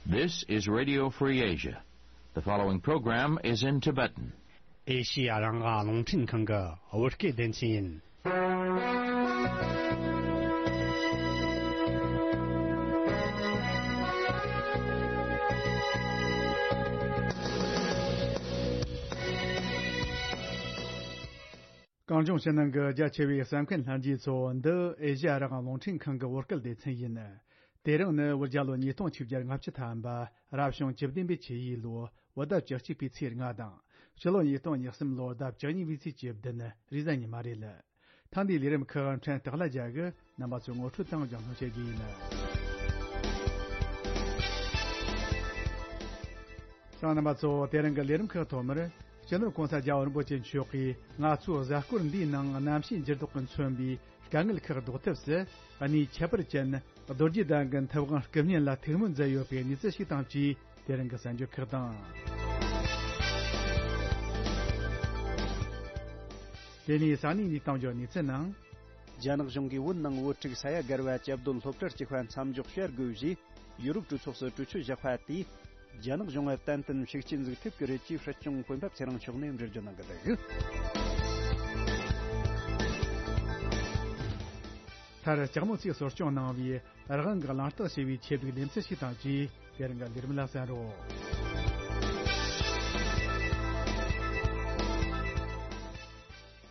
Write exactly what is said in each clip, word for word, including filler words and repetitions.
This is Radio Free Asia. The following program is in Tibetan. ཨེ་ཤི་ཡ་རང་དབང་རླུང་འཕྲིན་ཁང་གི་བོད་སྐད་སྡེ་ཚན་ཡིན། གངས་ལྗོངས་ཕྱི་ནང་གི་རྒྱ་ཆེ་བའི་གསན་མཁན་ལྷན་རྒྱས་ཚོ། འདི་ཨེ་ཤ་ཡ་རང་དབང་རླུང་འཕྲིན་ཁང་གི་བོད་སྐད་སྡེ་ཚན་ཡིན། དེ་རིང་ནི་བོད་རྒྱལ་ལོ་ཉིས་སྟོང་ཆིག་བརྒྱ་ལྔ་བཅུ་ཐམ་པ། རབ་བྱུང་བཅུ་བདུན་པའི་ཆུ་ཡོས་ལོ། བོད་ཟླ་བཅུ་གཅིག་པའི་ཚེས་ལྔ་དང་། སྤྱི་ལོ་ཉིས་སྟོང་ཉེར་གསུམ་ལོ་ཟླ་བཅུ་གཉིས་པའི་ཚེས་བཅུ་བདུན། རེས་གཟའ་ཉི་མ་རེད། ཐེངས་འདིའི་ལས་རིམ་ཁག་ཕྲན་སྟག་ལྷ་རྒྱལ་གྱིས་རྣམ་པ་ཚོའི་ངོ་སྤྲོད་དང་སྦྱང་གནང་བྱེད་རྒྱུ་ཡིན། གསན་མཁན་རྣམ་པ་ཚོ། དེ་རིང་གི་ལས་རིམ་ཁག་ཐོག་མར། སྤྱི་ནོར་༸གོང་ས་༸རྒྱལ་བ་རིན་པོ་ཆེ་མཆོག་གིས་ང་ཚོའི་གཟའ་སྐོར་འདིའི་ནང་གནམ་གཤིས་འགྱུར་ལྡོག་གིས་མཚོན་པའི་དཀའ་ངལ་ཁག་ཟློག་ཐབས་སུ། གནས་ཁྱད་པར་ཅན་རྡོ་རྗེ་གདན་གྱི་མཐེབ་དབང་སྐུ་བརྙན་ལ་ཐུགས་སྨོན་མཛད་ཡོད་པའི་གནས་ཚུལ་ཞིག་དང་བཅས། དེ་རིང་གི་གསར་འགྱུར་ཁག་དང་། དེ་ནས་ས་གནས་འདིའི་གཏམ་བརྗོད་གནས་ཚུལ་ནང་། རྒྱ་ནག་གཞུང་གིས་བོད་ནང་བོད་ཕྲུག་ས་ཡ་བརྒལ་བ་བཅའ་སྡོད་སློབ་གྲྭར་བཅུག་པ་མཚམས་འཇོག་བྱ་དགོས་ཞེས་ཡུ་རོབ་གྲོས་ཚོགས་སུ་གྲོས་ཆོད་བཞག་པ་དེས། རྒྱ་ནག་གཞུང་ལ་ཏན་ཏན་ཤུགས་རྐྱེན་ཟིག་ཐེབས་ཀྱི་རེད་ཅེས་སྲིད་སྐྱོང་འོས་འཕེན་པ་ཚེ་རིང་མཆོག་ནས་འགྲེལ་བརྗོད་གནང་གི་འདུག་མཐར་ལྕགས་མོ་ཚོས་གསོ་སྐྱོང་གནང་བའི་རང་དབང་གི་གླེང་སྟེགས་ཞེས་པའི་ཆེད་དུ་ལེ་ཚན་ཞིག་དང་བཅས། དེ་རིང་གི་ལས་རིམ་ལ་གསན་རོགས།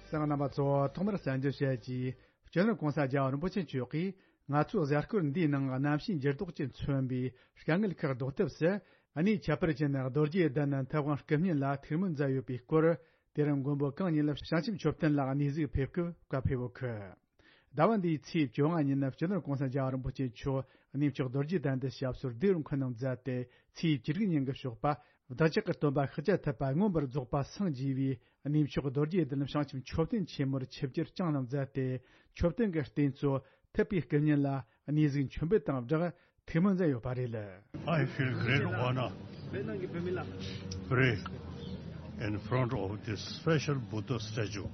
གསན་མཁན་རྣམ་པ་ཚོ། ཐོག་མར་གསར་འགྱུར་བཤད་ཀྱིས། སྤྱི་ནོར་༸གོང་ས་༸རྒྱལ་བ་རིན་པོ་ཆེ་མཆོག་གིས་ང་ཚོའི་གཟའ་སྐོར་འདིའི་ནང་གནམ་གཤིས་འགྱུར་ལྡོག་གིས་མཚོན་པའི་དཀའ་ངལ་ཁག་ཟློག་ཐབས་སུ། གནས་ཁྱད་པར་ཅན་རྡོ་རྗེ་གདན་མཐེབ་དབང་སྐུ་བརྙན་ལ་ཐུགས་སྨོན་མཛད་ཡོད་པའི་སྐོར། དེ་རིང་མགོན་པོ་གང་ཉིད་ལ་བྱང་ཆུབ་མཆོད་རྟེན་ལ་གནས་གཟིགས་ཕེབས་སྐབས་བཀའ་ཕེབས་ཡོད་གི། ཟླ་བ་འདིའི་ཚེས་བཅོ་ལྔ་ཉིན་སྤྱི་ནོར་༸གོང་ས་༸རྒྱལ་བ་རིན་པོ་ཆེ་མཆོག་གནས་མཆོག་རྡོ་རྗེ་གདན་དུ་ཞབས་སོར་སྡེ་རུ་འཁོད་གནང་མཛད་དེ། ཚེས་བཅུ་དྲུག་ཉིན་གྱི་ཞོགས་པ། བདག་ཅག་གི་སྟོན་པ་ཤཱཀྱ་ཐུབ་པ་མངོན་པར་རྫོགས་པ་སངས་རྒྱས་པའི་གནས་མཆོག་རྡོ་རྗེ་གདན་བྱང་ཆུབ་མཆོད་རྟེན་ཆེན་མོར་ཆིབས་བསྒྱུར་བསྐྱངས་གནང་མཛད་དེ། མཆོད་རྟེན་གྱི་རྟེན་གཙོ་ཐུབ་པའི་སྐུ་བརྙན་ལ་གནས་གཟིགས་མཆོད་འབུལ་དང་སྦྲགས་ཐུགས་སྨོན་མཛད་ཡོད་པ་རེད། I feel great honor to pray in front of this special Buddha statue.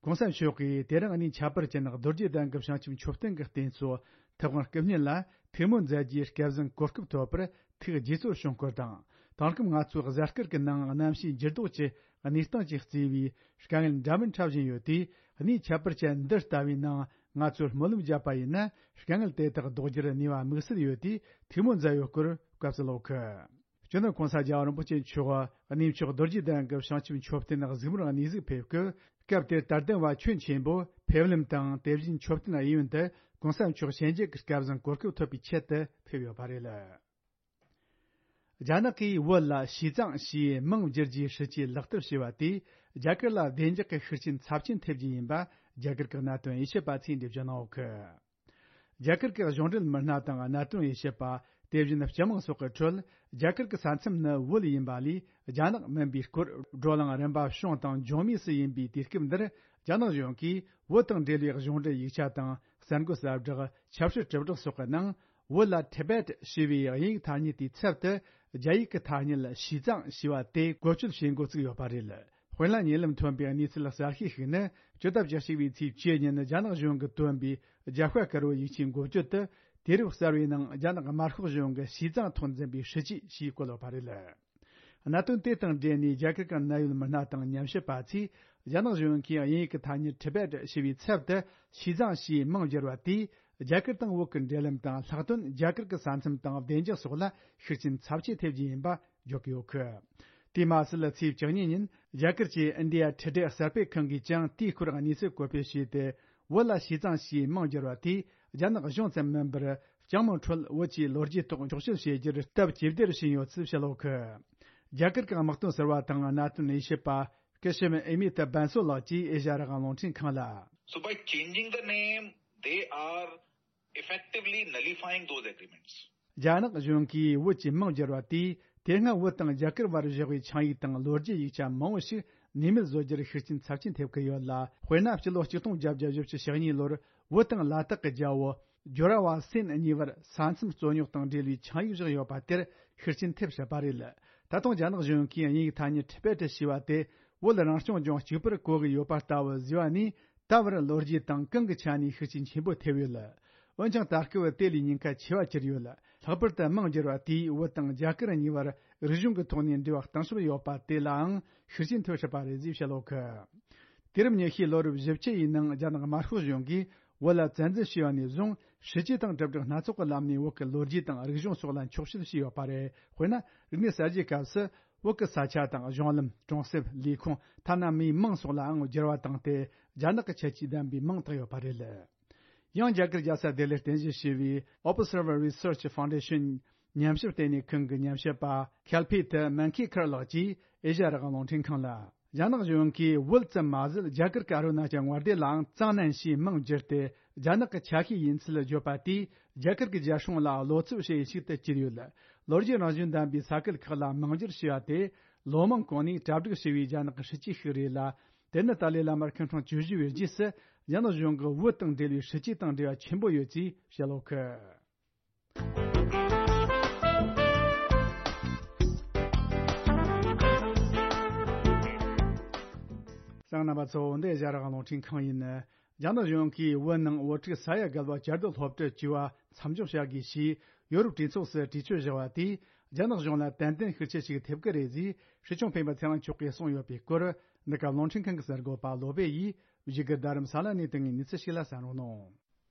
༸གོང་ས་མཆོག་གིས་དེ་རིང་གནས་ཁྱད་པར་ཅན་རྡོ་རྗེ་གདན་གྱི་བྱང་ཆུབ་མཆོད་རྟེན་གྱི་རྟེན་གཙོ་ཐུབ་དབང་སྐུ་བརྙན་ལ་ཐུགས་སྨོན་མཛད་རྒྱུའི་སྐལ་བཟང་གོ་སྐབས་ཐོབ་པར་ཐུགས་དགྱེས་ཚོར་བྱུང་སྐོར་དང་། དེང་སྐབས་ང་ཚོའི་གཟའ་སྐར་གྱི་ནང་གནམ་གཤིས་འགྱུར་ལྡོག་གི་གནས་སྟངས་ཀྱིས་བརྩིས་པའི་དཀའ་ངལ་འདྲ་མིན་འཕྲད་བཞིན་ཡོད་དུས། གནས་ཁྱད་པར་ཅན་འདི་ལྟ་བུའི་ནང་ང་ཚོས་སྨོན་ལམ་བརྒྱབ་པ་ཡིན་ན། དཀའ་ངལ་དེ་དག་ཟློག་རྒྱུར་ནུས་པ་དམིགས་བསལ་ཡོད་དུས། ཐུགས་སྨོན་མཛད་ཡོད་སྐོར་སྐབས་སུ་ལོག་གི། སྤྱི་ནོར་༸གོང་ས་༸རྒྱལ་བ་རིན་པོ་ཆེ་མཆོག་གནས་མཆོག་རྡོ་རྗེ་གདན་གྱི་བྱང་ཆུབ་མཆོད་རྟེན་གཟིགས་མོར་གནས་གཟིགས་ཕེབས་སྐབས། སྐབས་དེར་དད་ལྡན་པ་ཁྱོན་ཆེན་པོ་ཕེབས་ལམ་དང་། དེ་བཞིན་མཆོད་རྟེན་གཡས་གཡོན་དུ་༸གོང་ས་མཆོག་ཞལ་མཇལ་གྱི་སྐལ་བཟང་གོ་སྐབས་ཐོབ་པའི་ཆེད་དུ་ཕེབས་ཡོད་པ་རེད། རྒྱ་ནག་གིས་བོད་ལ་ཞི་ཙང་ཞེས་མིང་བསྒྱུར་རྒྱུའི་སྲིད་ཇུས་ལག་བསྟར་བྱས་པ་དེས། རྒྱ་གར་ལ་བདེ་འཇགས་ཀྱི་ཤུགས་རྐྱེན་ཚབས་ཆེན་ཐེབས་རྒྱུ་ཡིན་པ། རྒྱ་གར་གྱི་གནད་དོན་དབྱེ་ཞིབ་པ་ཚོས་འགྲེལ་བརྗོད་གནང་ཡོད་གི། རྒྱ་གར་གྱི་གཞུང་འབྲེལ་མི་སྣ་དང་གནད་དོན་དབྱེ་ཞིབ་པ། དེ་བཞིན་སྤྱི་དམངས་སོགས་ཀྱི་ཁྲོད། རྒྱ་གར་གྱི་ས་མཚམས་ནི་བོད་ཡིན་པ་ལས་རྒྱ་ནག་མིན་པའི་སྐོར། བགྲོ་གླེང་རིམ་པ་བྱུང་དང་འབྱུང་མུས་སུ་ཡིན་པའི་དུས་སྐབས་འདིར། རྒྱ་ནག་གཞུང་གིས་བོད་དང་འབྲེལ་བའི་གཞུང་འབྲེལ་ཡིག་ཆ་དང་གསར་འགོད་གསལ་བསྒྲགས། ཆབ་སྲིད་དྲིལ་བསྒྲགས་སོགས་ཀྱི་ནང་། བོད་ལ་Tibet ཞེས་པའི་དབྱིན་ཡིག་ཐ་སྙད་དེའི་ཚབ་ཏུ། རྒྱ་ཡིག་གི་ཐ་སྙད་ཞི་ཙང་ཞེས་པ་དེ་བཀོལ་སྤྱོད་བྱེད་འགོ་བཙུགས་ཡོད་པ་རེད། དཔེར་ན། ཉེ་ལམ་ཐོན་པའི་གནས་ཚུལ་གསར་ཤོས་ཤིག་ནི། སྤྱི་ཟླ་བཅུ་གཅིག་པའི་ཚེས་བཅུ་ཉིན་རྒྱ་ནག་གཞུང་གིས་བཏོན་པའི་རྒྱ་ཤྭ་དཀར་པོའི་ཡིག་ཆའི་འགོ་བརྗོད་དུ། དུས་རབས་གསར་བའི་ནང་རྒྱ་ནག་དམར་ཤོག་གཞུང་གི་ཞི་ཙང་ཐོག་འཛིན་པའི་སྲིད་ཇུས་ཞེས་བཀོད་ཡོད་པ་རེད། གནད་དོན་དེ་དང་འབྲེལ་ནས་རྒྱ་གར་གྱི་གནད་ཡོད་མི་སྣ་དང་ཉམས་ཞིབ་པ་ཚོས། རྒྱ་ནག་གཞུང་གིས་དབྱིན་ཡིག་གི་ཐ་སྙད་Tibet ཞེས་པའི་ཚབ་ཏུ་ཞི་ཙང་ཞེས་མིང་བསྒྱུར་བ་དེས། རྒྱ་གར་དང་བོད་ཀྱི་འབྲེལ་ལམ་དང་ལྷག་དོན་རྒྱ་གར་གྱི་ས་མཚམས་དང་བདེ་འཇགས་སོགས་ལ་ཤུགས་རྐྱེན་ཚབས་ཆེ་ཐེབས་རྒྱུ་ཡིན་པ་བརྗོད་ཀྱི་ཡོད་གི། དེ་མ་ཟད། ཚེས་བཅུ་གཉིས་ཉིན་རྒྱ་གར་གྱི་India Today གསར་སྤེལ་ཁང་གིས་ཀྱང་དེའི་སྐོར་གནས་ཚུལ་བཀོད་སྤེལ་བྱས་ཏེ། བོད་ལ་ཞི་ཙང་ཞེས་མིང་བསྒྱུར་བ་དེས་རྒྱ་ནག་གཞུང་ཙམ་མིན་པར། སྤྱི་དམངས་ཁྲོད་བོད་ཀྱི་ལོ་རྒྱུས་ཐོག་འཁྱོག་བཤད་བྱེད་རྒྱུར་སྟབས་ཇེ་བདེར་ཕྱིན་ཡོད་ཚུལ་བཤད་ཡོད་གི། རྒྱ་གར་གྱི་དམག་དོན་ཟུར་པ་དང་གནད་དོན་དབྱེ་ཞིབ་པ། སྐུ་ཞབས་ཨེ་མི་ཏ་བན་སོ་ལགས་ཀྱིས་ཨེ་ཤ་ཡ་རང་དབང་རླུང་འཕྲིན་ཁང་ལ། So by changing the name, they are effectively nullifying those agreements. རྒྱ་ནག་གཞུང་གིས་བོད་ཀྱི་མིང་བསྒྱུར་བ་དེས། དེ་སྔ་བོད་དང་རྒྱ་གར་བར་བཞག་པའི་ཆིངས་ཡིག་དང་ལོ་རྒྱུས་ཡིག་ཆ་མང་བོ་ཞིག་ནུས་མེད་བཟོ་རྒྱུར་ཤུགས་རྐྱེན་ཚབས་ཆེན་ཐེབས་ཀྱི་ཡོད་ལ། དཔེར་ན། སྤྱི་ལོ་གཅིག་སྟོང་བརྒྱད་བརྒྱ་བཞི་བཅུ་ཞེ་གཉིས་ལོར་བོད་དང་ལ་དྭགས་ཀྱི་རྒྱལ་པོ་ཇོ་ར་བ་སེན་གཉིས་བར་ས་མཚམས་རྩོད་རྙོག་དང་འབྲེལ་བའི་ཆིངས་ཡིག་བཞག་ཡོད་པ་དེར་ཤུགས་རྐྱེན་ཐེབས་སྲིད་པ་རེད། ད་དུང་རྒྱ་ནག་གཞུང་གིས་དབྱིན་ཡིག་ཐ་སྙད་Tibet ཞེས་པ་དེ་བོད་རང་སྐྱོང་ལྗོངས་གཅིག་པུར་གོ་གི་ཡོད་པ་ལྟ་བུ་བཟོས་པ་ནས། ད་བར་ལོ་རྒྱུས་དང་གང་གི་ཆ་ནས་ཤུགས་རྐྱེན་ཆེན་པོ་ཐེབས་ཡོད། འོན་ཀྱང་ད་སྐབས་དེ་ལས་ཉེན་ཁ་ཆེ་བ་གྱུར་ཡོད། ལྷག་པར་དུ་མིང་བསྒྱུར་བ་དེས་བོད་དང་རྒྱ་གར་གཉིས་བར་རིག་གཞུང་གི་ཐོག་ནས་འབྲེལ་བ་གཏིང་ཟབ་ཡོད་པ་དེ་ལའང་ཤུགས་རྐྱེན་ཐེབས་སྲིད་པ་རེད་ཅེས་བཤད་ཡོད་གི། དུས་རབས་ཉི་ཤུའི་ལོ་རབས་བཞི་བཅུ་ཡི་ནང་རྒྱ་ནག་དམར་ཤོག་གཞུང་གིས་བོད་ལ་བཙན་འཛུལ་བྱས་པ་ནས་བཟུང་། སྲིད་ཇུས་དང་གྲ་སྒྲིག་སྣ་ཚོགས་ཀྱི་ལམ་ནས་བོད་ཀྱི་ལོ་རྒྱུས་དང་རིག་གཞུང་སོགས་ལ་འཁྱོག་བཤད་བྱས་ཡོད་པ་རེད། དཔེར་ན། རིག་གནས་གསར་བརྗེའི་སྐབས་སུ་བོད་ཀྱི་ས་ཆ་དང་གཞུང་ལམ། གྲོང་གསེབ། ལས་ཁུངས། ཐ་ན་མིའི་མིང་སོགས་ལའང་བསྒྱུར་བ་བཏང་སྟེ། རྒྱ་ནག་གི་ཁྱད་ཆོས་ལྡན་པའི་མིང་བཏགས་ཡོད་པ་རེད། ཡང་རྒྱ་གར་རྒྱལ་ས་ལྡི་ལིར་རྟེན་གཞི་བྱས་པའི་Observer Research Foundation ཉམས་ཞིབ་ལྟེ་གནས་ཁང་གི་ཉམས་ཞིབ་པ་ཁལ་ཕེ་ཐི་མན་ཁེ་ཁར་ལགས་ཀྱིས་ཨེ་ཤ་ཡ་རང་དབང་རླུང་འཕྲིན་ཁང་ལ། རྒྱ་ནག་གཞུང་གིས་བོད་ཙམ་མ་ཟད། རྒྱ་གར་གྱི་ཨ་རུ་ན་ཅལ་མངའ་སྡེ་ལའང་ཙང་ནན་ཞེས་མིང་བསྒྱུར་ཏེ། རྒྱ་ནག་གི་ཆ་ཤས་ཡིན་ཚུལ་བརྗོད་པ་དེས། རྒྱ་གར་གྱི་རྒྱལ་སྲུང་ལ་བློ་འཚབ་བྱེད་ཡུལ་ཞིག་ཏུ་གྱུར་ཡོད། ལོ་རྒྱུས་རང་བཞིན་ལྡན་པའི་ས་ཁུལ་ཁག་ལ་མིང་བསྒྱུར་བྱས་པ་དེ། ལོ་མང་གོང་ནས་གྲ་སྒྲིག་བྱས་པའི་རྒྱ་ནག་གི་སྲིད་ཇུས་ཤིག་རེད་ལ། དེ་ནི་ཏཱ་ལའི་བླ་མར་ཁོང་ཁྲོ་བཅུ་བཞི་བའི་རྗེས་སུ། རྒྱ་ནག་གཞུང་གིས་བོད་དང་འབྲེལ་བའི་སྲིད་ཇུས་དང་འབྲེལ་བ་ཆེན་པོ་ཡོད་ཅེས་བཤད་ཡོད་གི། གསན་མཁན་རྣམ་པ་ཚོ། འདི་ཨེ་ཤ་ཡ་རང་དབང་རླུང་འཕྲིན་ཁང་ཡིན། རྒྱ་ནག་གཞུང་གིས་བོད་ནང་བོད་ཕྲུག་ས་ཡ་བརྒལ་བ་བཅའ་སྡོད་སློབ་གྲྭར་བཅུག་པ་མཚམས་འཇོག་བྱ་དགོས་ཞེས་ཡོ་རོབ་གྲོས་ཚོགས་སུ་གྲོས་ཆོད་བཞག་པ་དེས། རྒྱ་ནག་གཞུང་ལ་ཏན་ཏན་ཤུགས་རྐྱེན་ཞིག་ཐེབས་ཀྱི་རེད་ཅེས་སྲིད་སྐྱོང་སྤེན་པ་ཚེ་རིང་མཆོག་གིས་གསུངས་ཡོད་པའི་སྐོར། འདི་ག་རླུང་འཕྲིན་ཁང་གི་གསར་འགོད་པ་བློ་བྷེ་ཡིས་བཞུགས་སྒར་རྡ་རམ་ས་ལ་ནས་བཏང་བའི་གནས་ཚུལ་ཞིག་ལ་གསན་རོགས་གནང་།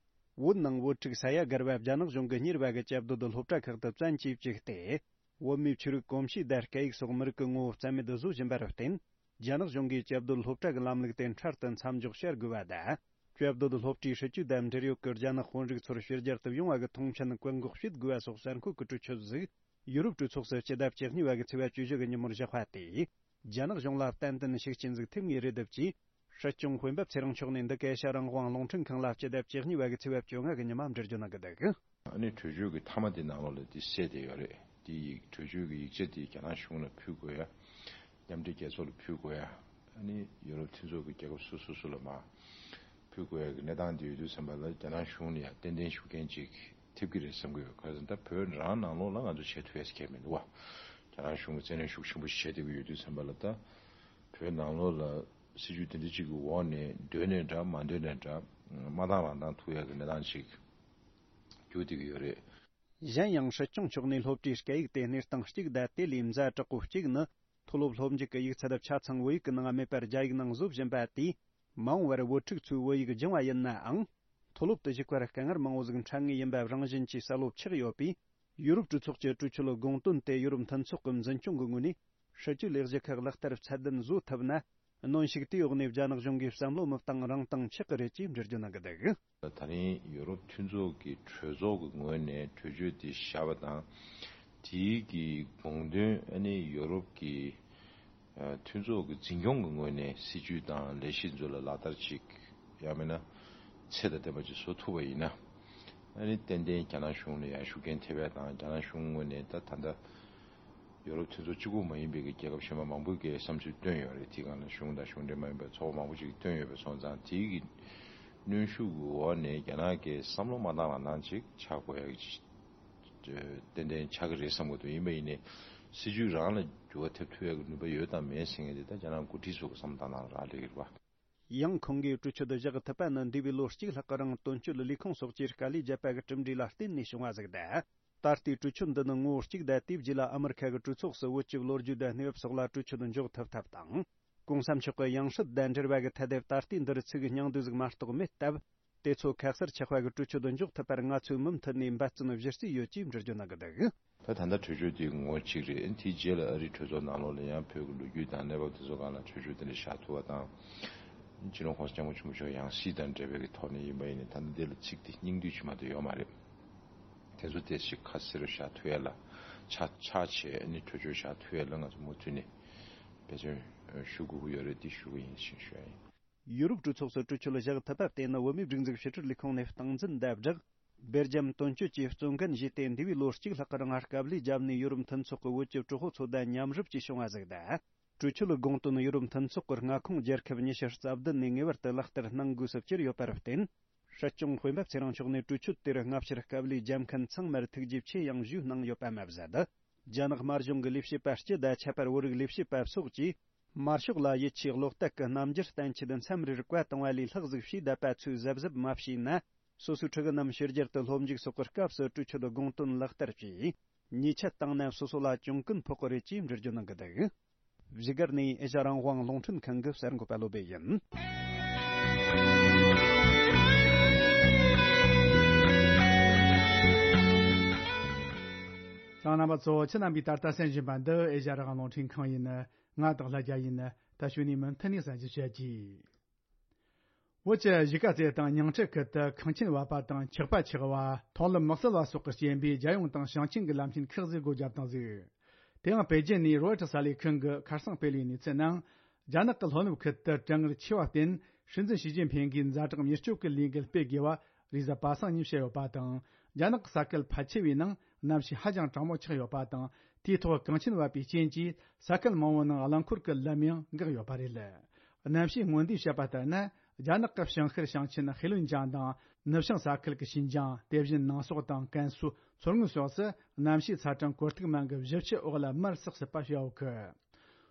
བོད་ནང་བོད་ཕྲུག་ས་ཡ་བརྒལ་བ་རྒྱ་ནག་གཞུང་གིས་གཉེར་བ་གི་བཅའ་སྡོད་སློབ་གྲྭ་ཁག་ཏུ་བཙན་གྱིས་བཅུག་སྟེ། བོད་མིའི་ཆོས་རིག་གོམས་གཤིས་དང་སྐད་ཡིག་སོགས་མི་རིགས་ཀྱི་ངོ་བོ་རྩ་མེད་བཟོ་བཞིན་པར་བརྟེན། རྒྱ་ནག་གཞུང་གིས་བཅའ་སྡོད་སློབ་གྲྭ་གི་ལམ་ལུགས་དེ་འཕྲལ་དུ་མཚམས་འཇོག་བྱ་དགོས་པ་དང་། བཅའ་སྡོད་སློབ་གྲྭའི་སྲིད་ཇུས་དང་འབྲེལ་ཡོད་ཀྱི་རྒྱ་ནག་དཔོན་རིགས་ཚོར་ཕྱི་རྒྱལ་དུ་ཡོང་བ་གི་ཐོངས་མཆན་བཀག་འགོག་བྱེད་དགོས་པ་སོགས་གསར་འགོད་ཀྱི་གྲོས་ཆོད་ཟིག་ཡུ་རོབ་གྲོས་ཚོགས་སུ་སྤྱི་ཟླ་བཅུ་གཉིས་པ་གི་ཚེས་པ་བཅུ་བཞི་གི་ཉིན་མོར་བཞག་པ་དེས། རྒྱ་ནག་གཞུང་ལ་ཏན་ཏན་ཤུགས་རྐྱེན་ཟིག་ཐེབས་ངེས་རེད་འདུག་ཅེས། སྲིད་སྐྱོང་སྤེན་པ་ཚེ་རིང་མཆོག་ནས་འདི་ག་ཨེ་ཤ་ཡ་རང་དབང་རླུང་འཕྲིན་ཁང་ལ་སྤྱི་ཟླ་བཅུ་གཉིས་པ་གི་ཚེས་པ་བཅོ་ལྔ་གི་ཉི་མ་འགྲེལ་བརྗོད་གནང་གི་འདུག། ཨ་ནི་གྲོས་ཆོད་ཀྱི་མཐའ་མ་དེ་ནང་ལོགས་ལ་དེ་གསལ་བསྡད་ཡོད་རེད། དེ་ཡིག་གྲོས་ཆོད་ཀྱི་ཡིག་ཆ་དེ་རྒྱ་ནག་གཞུང་ལ་ཕུལ་དགོས་ཡ། མཉམ་འབྲེལ་རྒྱལ་ཚོགས་ལ་ཕུལ་དགོས་ཡ། ཨ་ནི་ཡུ་རོབ་མཐུན་ཚོགས་ཀྱི་རྒྱལ་ཁབ་སོ་སོ་སོ་ལ་མར་ཕུལ་དགོས་ཡ་གི་གནས་སྟངས་དེ་ཡོད་དུས་ཙམ་པ་ལ་རྒྱ་ནག་གཞུང་ནས་ཡང་ཏན་ཏན་ཤུགས་རྐྱེན་ཅིག་ཐེབས་ཀྱི་རེད་བསམ་གྱི་ཡོད། ག་རེ་ཟེར་ན་ད་བོད་རང་ནང་ལོགས་ལ་ང་ཚོ་བྱེད་ཐུབ་ཡ་ཟེར་མཁན་མི་འདུག་བ། རྒྱ་ནག་གཞུང་གིས་བཙན་གནོན་ཤུགས་ཆེན་པོ་ཞིག་བྱེད་བསྡད་ཀྱི་ཡོད་དུས་ཙམ་པ་ལ། ད་བོད་ནང་ལོགས་ལ་སྲིད་ཇུས་དེ་འདྲ་ཅིག་གི་འོག་ནས་འདོད་ནས་འདྲ་མ་འདོད་ནས་འདྲ་མ་བཏང་རང་བཏང་ཐུབ་ཡ་གི་གནས་སྟངས་ཅིག་འགྱུར་བསྡད་ཀྱི་ཡོད་རེད། གཞན་ཡང་སྲིད་སྐྱོང་མཆོག་ནས་སློབ་གྲྭའི་སྐད་ཡིག་དེ་གནས་སྟངས་གཅིག་དང་དེ་ལས་ཛ་དྲག་པོ་གཅིག་ནི། མཐོ་སློབ་སློབ་འཇུག་གི་ཡིག་ཚད་ཆ་ཚང་བོད་ཡིག་གི་ནང་མེད་པར་རྒྱ་ཡིག་ནང་བཟོ་བཞིན་པ་དེས། མ་འོངས་པར་བོད་ཕྲུག་ཚོས་བོད་ཡིག་སྦྱང་བ་ཡིན་ནའང་། མཐོ་སློབ་ཏུ་ཞུགས་པར་དཀའ་ངལ་མང་བོ་ཟིག་འཕྲད་ངེས་ཡིན་པ་རང་བཞིན་གྱིས་གསལ་བོ་ཆགས་ཡོད་པས། ཡུ་རོབ་གྲོས་ཚོགས་ཀྱི་གྲོས་ཆོད་དགོངས་དོན་དེ་ཡུ་རོབ་མཐུན་ཚོགས་ཀྱི་འཛིན་སྐྱོང་གི་ངོས་ནས་སྲིད་ཇུས་ལས་གཞི་ཁག་ལག་བསྟར་ཚད་ལྡན་བཟོ་ཐུབ་ན། གནོན་ཤུགས་དེའི་འོག་ནས་རྒྱ་ནག་གཞུང་གིས་བསམ་བློ་མི་བཏང་རང་བཏང་ཆགས་ཀྱི་རེད་ཅེས་འགྲེལ་བརྗོད་གནང་གི་འདུག། ད་རིང་ཡུ་རོབ་མཐུན་ཚོགས་ཀྱི་གྲོས་ཚོགས་ཀྱི་ངོས་ནས་གྲོས་ཆོད་དེ་བཞག་པ་དང་། དེའི་གི་དགོངས་དོན་ཨ་ནི་ཡུ་རོབ་ཀྱི་ཨ་མཐུན་ཚོགས་ཀྱི་འཛིན་སྐྱོང་གི་ངོས་ནས་སྲིད་ཇུས་དང་ལས་གཞི་ཚོ་ལ་ལག་བསྟར་ཅིག་ཡང་མིན་ན་ཚད་དང་ལྡན་པ་ཅིག་བཟོ་ཐུབ་པ་ཡིན་ན། ཨ་ནི་ཏན་ཏན་རྒྱ་ནག་གཞུང་ལ་ཡང་ཤུགས་རྐྱེན་ཐེབས་ཡ་དང་། རྒྱ་ནག་གཞུང་ངོས་ནས་ད་ད་ལྟ་ཡོ་རོབ་མཐུན་ཚོགས་གཅིག་པུ་མ་ཡིན་པའི་གི་རྒྱལ་ཁབ་གཞན་པ་མང་པོས་གི་བསམ་ཚུལ་བཏོན་ཡོད་རེད། དེའི་སྒང་ལ་གཞུང་དང་གཞུང་འབྲེལ་མ་ཡིན་པའི་ཚོགས་པ་མང་པོ་ཅིག་གིས་བཏོན་ཡོད་པ་སོང་ཙང་། དེའི་གི་གནོན་ཤུགས་ཀྱི་འོག་ནས་རྒྱ་ནག་གིས་བསམ་བློ་མ་བཏང་རང་བཏང་ཅིག་ཆགས་དགོས་ཡ་གི་ཏན་ཏན་ཆགས་ཀྱི་རེད་བསམ་གྱི་འདུག། ཡིན་པ་ཡིན་ནའི་སྲིད་ཇུས་རང་ལ་འགྱུར་བ་ཐེབས་ཐུབ་ཡ་གི་ནུས་པ་ཡོད་དམ་མེད་ཟེར་མཁན་དེ་ད་རྒྱ་ནག་འགོ་ཁྲིད་ཚོ་གི་བསམ་བློ་བཏང་སྟངས་རག་ལས་ཀྱི་རེད་བ། ཡང་ཁོང་གིས་གྲོས་ཆོད་བཞག་ཐུབ་པ་ནི་འདས་པའི་ལོ་གཅིག་ལྷག་གི་རིང་དོན་གཅོད་ལས་ཁུངས་སོགས་ཀྱིས་དཀའ་ལས་བརྒྱབ་པ་གི་གྲུབ་འབྲས་ལ་བརྟེན་ནས་བྱུང་བ་ཟིག་དང་། ད་ལྟའི་གྲོས་ཆོད་འདི་ནི་ངོ་བོ་གཅིག་དང་། དེའི་རྗེས་ལ་ཨ་མི་རི་ཁ་གི་གྲོས་ཚོགས་སུ་བོད་ཀྱི་ལོ་རྒྱུས་དང་གནས་བབ་སོགས་ལ་གྲོས་ཆོད་འཇོག་ཐུབ་ཐབས་དང་། གོང་ས་མཆོག་གི་ཡང་སྲིད་དང་འབྲེལ་བ་གི་ཐད་དེ་ད་ལྟའི་འདིར་ཚིག་སྙིང་བསྡུས་ཟིག་མ་གཏོགས་མེད་སྟབས། དེ་ཚོ་ཁ་གསལ་ཆགས་པ་གི་གྲོས་ཆོད་འཇོག་ཐུབ་པར་ང་ཚོས་མུ་མཐུད་ནས་འབད་བརྩོན་གཞི་རྩའི་ཡོད་ཅེས་འགྲེལ་བརྗོད་གནང་གི་འདུག། ད་ད་ལྟ་གྲོས་ཆོད་དེ་ངོ་གཅིག་རེད། དེའི་རྗེས་ལ་ཨ་རིའི་གྲོས་ཚོགས་ནང་ལོགས་ལ་ཡང་བོད་ཀྱི་ལོ་རྒྱུས་དང་གནས་བབ་དེ་ཚོ་སྒང་ལ་གྲོས་ཆོད་དེ་འདྲ་བཞག་ཐུབ་པ་དང་། སྤྱི་ནོར་༸གོང་ས་༸སྐྱབས་མགོན་ཆེན་པོ་མཆོག་ཡང་སྲིད་དང་འབྲེལ་བའི་གི་ཐོག་ནས་ཡིན་པ་ཡིན་ནའི་ད་ལྟ་འདི་ལ་ཚིག་དེ་སྙིང་བསྡུས་ཅིག་མ་གཏོགས་ཡོད་མ་རེད། དེ་ཚོ་དེ་ཞིག་ཁ་གསལ་རུ་བཞག་ཐུབ་ཡ་ལ་ཆ་ཆ་བྱས་ནས་གྲོས་ཆོད་བཞག་ཐུབ་ཡ་ལ་ང་ཚོ་མུ་མཐུད་ནས་འབད་བརྩོན་ཞུ་དགོས་ཀྱི་ཡོད་རེད། དེ་ཞུ་གི་ཡིན་ཞེས་ཞུ་ཡ་ཡིན། ཡུ་རོབ་གྲོས་ཚོགས་སུ་གྲོས་ཆོད་བཞག་ཐུབ་པ་དེ་ནི་བོད་མིའི་སྒྲིག་འཛུགས་ཕྱི་དྲིལ་ལས་ཁུངས་ནས་སྟངས་འཛིན་དང་སྦྲགས། སྦེལ་ཇམ་དོན་གཅོད་ཀྱིས་གཙོ་འགན་བཞེས་ཏེ། འདས་པའི་ལོ་གཅིག་ལྷག་གི་རིང་དཀའ་ལས་བརྒྱབ་ནས་ཡུ་རོབ་མཐུན་ཚོགས་ཀྱི་བོད་ཀྱི་གྲོས་ཚོགས་ཚོ་དང་མཉམ་རུབ་ཀྱིས་བྱུང་བ་ཟིག་དང་། གྲོས་ཆོད་ལ་དགོངས་དོན་ཡུ་རོབ་མཐུན་ཚོགས་ཀྱི་མངའ་ཁོངས་རྒྱལ་ཁབ་ཉི་ཤུ་རྩ་བདུན་ནས་ངེས་པར་དུ་ལག་བསྟར་གནང་དགོས་སུ་གྱུར་ཡོད་པར་བརྟེན། སྲིད་སྐྱོང་སྤེན་པ་ཚེ་རིང་མཆོག་ནས་གྲོས་ཆོད་དེར་སྔ་ཕྱིར་དཀའ་ལས་བརྒྱབ་མཁན་ཚང་མར་ཐུགས་རྗེ་ཆེ་ཡང་ཞུས་གནང་ཡོད་པ་མ་ཟད། རྒྱ་ནག་དམར་གཞུང་གི་ལས་བྱེད་པ་སྤྱི་དང་ཁྱད་པར་བོད་རིགས་ལས་བྱེད་པ་སོགས་ཀྱིས། དམར་ཤོག་ལ་ཡིད་ཆེས་བློ་གཏད་ཀྱི་རྣམ་འགྱུར་བསྟན་ཆེད་མཚམས་རེར་བཀའ་གཏོང་བ་ལས་ལྷག་ཟིག་ཞེ་བསྡད་པ་ཚོས་གཟབ་གཟབ་མ་བྱས་ན། སོ་སོའི་ཕྲུ་གུ་རྣམས་ཕྱི་རྒྱལ་དུ་སློབ་འཇུག་སོགས་ཀྱི་སྐབས་སུ་གྲོས་ཆོད་དགོངས་དོན་ལག་བསྟར་གྱིས། ཉེས་ཆད་བཏང་ན་སོ་སོ་ལ་གྱོང་གུན་ཕོག་གི་རེད་ཅེས་འགྲེལ་བརྗོད་གནང་གི་འདུག། བཞུགས་སྒར་ནས་ཨེ་ཤ་རང་དབང་རླུང་འཕྲིན་ཁང་གི་གསར་འགོད་པ་བློ་བྷེ་ཡིན། རྣམ་པ་ཚོ། ཁྱེད་རྣམ་པས་ད་ལྟ་གསན་བཞིན་པ་འདི་ཨེ་ཤ་རང་དབང་རླུང་འཕྲིན་ཁང་ཡིན། ང་སྟག་ལྷ་རྒྱལ་ཡིན། ད་གཞུག་ནས་མུ་མཐུད་ནས་གསན་རྒྱུ་བྱེད་ཀྱི། བོད་ཀྱི་གཞིས་ཀ་རྩེ་དང་ཉིང་ཁྲི་ཁུལ་དུ་ཁང་ཆེན་བབས་པ་དང་ཆག་པ་ཆགས་པ། མཐོང་ལམ་མི་གསལ་བ་སོགས་ཀྱི་རྐྱེན་པས་རྒྱལ་ཡོངས་དང་ཞིང་ཆེན་གྱི་ལམ་ཆེན་ཁག་ཅིག་སྒོ་བརྒྱབ་བཏང་ཟིག། དེ་ཡང་པེ་ཅིན་ནས་རོའི་ཊར་གསར་ལས་ཁང་གི་ཁ་སང་སྤེལ་བའི་གནས་ཚུལ་ནང་། རྒྱ་ནག་གི་ལྷོ་ནུབ་ཁུལ་དུ་གྲང་ངར་ཆེ་བར་བརྟེན། སྲིད་འཛིན་ཞི་ཅིན་ཕིང་གིས་ཛ་དྲག་མྱུར་སྐྱོབ་ཀྱི་ལས་འགུལ་སྤེལ་དགོས་པ་རེས་གཟའ་པ་སངས་ཉིན་བཤད་ཡོད་པ་དང་། རྒྱ་ནག་གི་ས་ཁུལ་ཕལ་ཆེ་བའི་ནང་གནམ་གཤིས་ཧ་ཅང་གྲང་མོ་ཆགས་ཡོད་པ་དང་། དེའི་ཐོག་གངས་ཆེན་བབས་པའི་རྐྱེན་གྱིས་ས་ཁུལ་མང་བོའི་ནང་རླངས་འཁོར་གྱི་ལམ་ཡང་འགག་ཡོད་པ་རེད། གནམ་གཤིས་སྔོན་བརྡས་བཤད་པ་ལྟར་ན། རྒྱ་ནག་གི་བྱང་ཤར་ཞིང་ཆེན་ཧེ་ལུན་ཅང་དང་། ནུབ་བྱང་ས་ཁུལ་གྱི་ཤིན་ཅང་། དེ་བཞིན་ནང་སོག་དང་ཀན་སུའུ། མཚོ་སྔོན་སོགས་སུ་གནམ་གཤིས་ཚ་གྲང་གོ་རྟིག་མན་གྱི་བཞི་བཅུ་འོག་ལ་མར་སག་སྲིད་པ་བྱ་འོག་གི།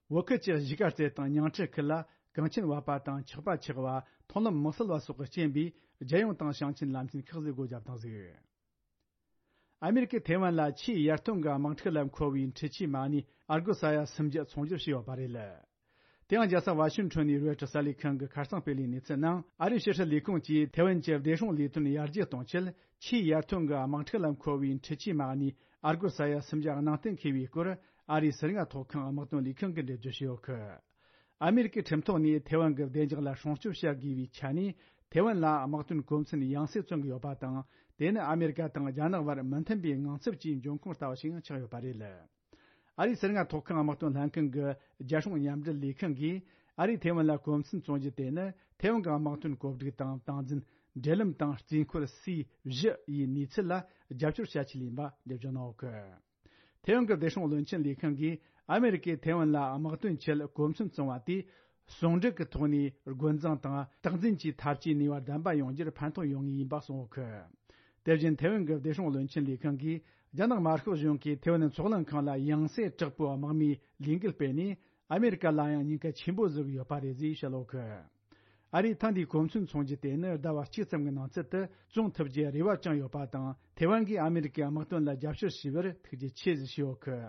བོད་ཁུལ་གྱི་གཞིས་ཀ་རྩེ་དང་ཉིང་ཁྲི་ཁུལ་ལ་གངས་ཆེན་བབས་པ་དང་ཆག་པ་ཆགས་པ། མཐོང་ལམ་མི་གསལ་བ་སོགས་ཀྱི་རྐྱེན་པས་རྒྱལ་ཡོངས་དང་ཞིང་ཆེན་ལམ་ཆེན་ཁག་ཅིག་སྒོ་བརྒྱབ་བཏང་ཟིག། ཨ་མེ་རི་ཀས་ཐེ་ཝན་ལ་ཆེས་ཡར་ཐོན་གྱི་དམག་འཁྲུག་ལ་མཁོ་བའི་འཕྲུལ་ཆས་མ་ཎི་ཨར་གོ་ས་ཡ་སུམ་བརྒྱ་ཚོང་སྒྱུར་བྱས་ཡོད་པ་རེད། དེ་ཡང་རྒྱལ་ས་ཝ་ཤིང་ཊོན་ནས་རོའི་ཊར་གསར་ལས་ཁང་གི་ཁ་སང་སྤེལ་བའི་གནས་ཚུལ་ནང་། ཨ་རིའི་ཕྱི་སྲིད་ལས་ཁུངས་ཀྱིས་ཐེ་ཝན་གྱི་བདེ་སྲུང་ལས་དོན་ཡར་རྒྱས་གཏོང་ཆེད། ཆེས་ཡར་ཐོན་གྱི་དམག་འཁྲུག་ལ་མཁོ་བའི་འཕྲུལ་ཆས་མ་ཎི་ཨར་གོ་ས་ཡ་སུམ་བརྒྱ་གནང་གཏན་འཁེལ་བའི་སྐོར། ཨ་རིའི་ཟུར་ལྔ་ཐོག་ཁང་དམག་དོན་ལས་ཁང་གིས་འགྲེལ་བརྗོད་བྱས་ཡོད་གི། ཨ་མེ་རི་ཀའི་ཁྲིམས་ཐོག་ནས་ཐེ་ཝན་གྱི་བདེ་འཇགས་ལ་སྲུང་སྐྱོབ་བྱ་དགོས་པའི་ཆ་ནས། ཐེ་ཝན་ལ་དམག་དོན་གོ་མཚོན་ཡང་སེ་བརྩོན་གྱི་ཡོད་པ་དང་། དེ་ནི་ཨ་མེ་རི་ཀ་དང་རྒྱ་ནག་བར་མི་མཐུན་པའི་ངང་ཚུལ་གྱི་འབྱུང་ཁུངས་ལྟ་བུ་ཞིག་ཆགས་ཡོད་པ་རེད། ཨ་རིའི་ཟུར་ལྔ་ཐོག་ཁང་དམག་དོན་ལྷན་ཁང་གི་རྒྱལ་སྲུང་མཉམ་འབྲེལ་ལས་ཁང་གིས། ཨ་རིས་ཐེ་ཝན་ལ་གོ་མཚོན་བཙོང་རྒྱུ་དེ་ནི་ཐེ་ཝན་གྱི་དམག་དོན་གོ་སྒྲིག་དང་སྟངས་འཛིན། འབྲེལ་ལམ་དང་རྩིས་འཁོར་སི་བཞི་ཡི་གནས་ཚུལ་ལ་རྒྱབ་སྐྱོར་བྱ་ཆེད་ཡིན་པ་འགྲེལ་བརྗོད་གནང་ཡོད་གི། ཐེ་ཝན་གྱི་བདེ་སྲུང་བློན་ཆེན་ལས་ཁང་གིས་ཨ་མེ་རི་ཀས་ཐེ་ཝན་ལ་དམག་དོན་ཆེད་གོ་མཚོན་བཙོང་བ་དེས། ཟུང་འབྲེལ་གྱི་ཐོག་ནས་རྒོལ་འཛིང་དང་རྟག་འཛིན་གྱི་འཐབ་ཇུས་ནུས་པ་ལྡན་པ་ཡོང་རྒྱུར་ཕན་ཐོགས་ཡོང་ངེས་ཡིན་པ་གསུངས་ཡོད་གི། དེ་བཞིན་ཐེ་ཝན་གྱི་བདེ་སྲུང་བློན་ཆེན་ལས་ཁང་གིས། རྒྱ་ནག་དམར་ཤོག་གཞུང་གིས་ཐེ་ཝན་མཚོ་གླིང་ཁང་ལ་ཡང་སེ་དྲག་པོའི་དམག་མིའི་ལས་འགུལ་སྤེལ་ནས། ཨ་མེ་རི་ཀ་ལ་ཡང་ཉེན་ཁ་ཆེན་པོ་བཟོ་གི་ཡོད་པ་རེད་ཅེས་བཤད་ཡོད་གི། ཨ་རིས་ཐེངས་འདིའི་གོ་མཚོན་བཙོང་རྒྱུ་དེ་ནི་ཟླ་བ་གཅིག་ཙམ་གྱི་ནང་ཚུད་དུ་བཙོང་ཐུབ་རྒྱུའི་རེ་བ་བཅངས་ཡོད་པ་དང་། ཐེ་ཝན་གྱིས་ཨ་མེ་རི་ཀའི་དམག་དོན་ལ་རྒྱབ་སྐྱོར་བྱས་པར་ཐུགས་རྗེ་ཆེ་ཞུས་ཡོད་གི།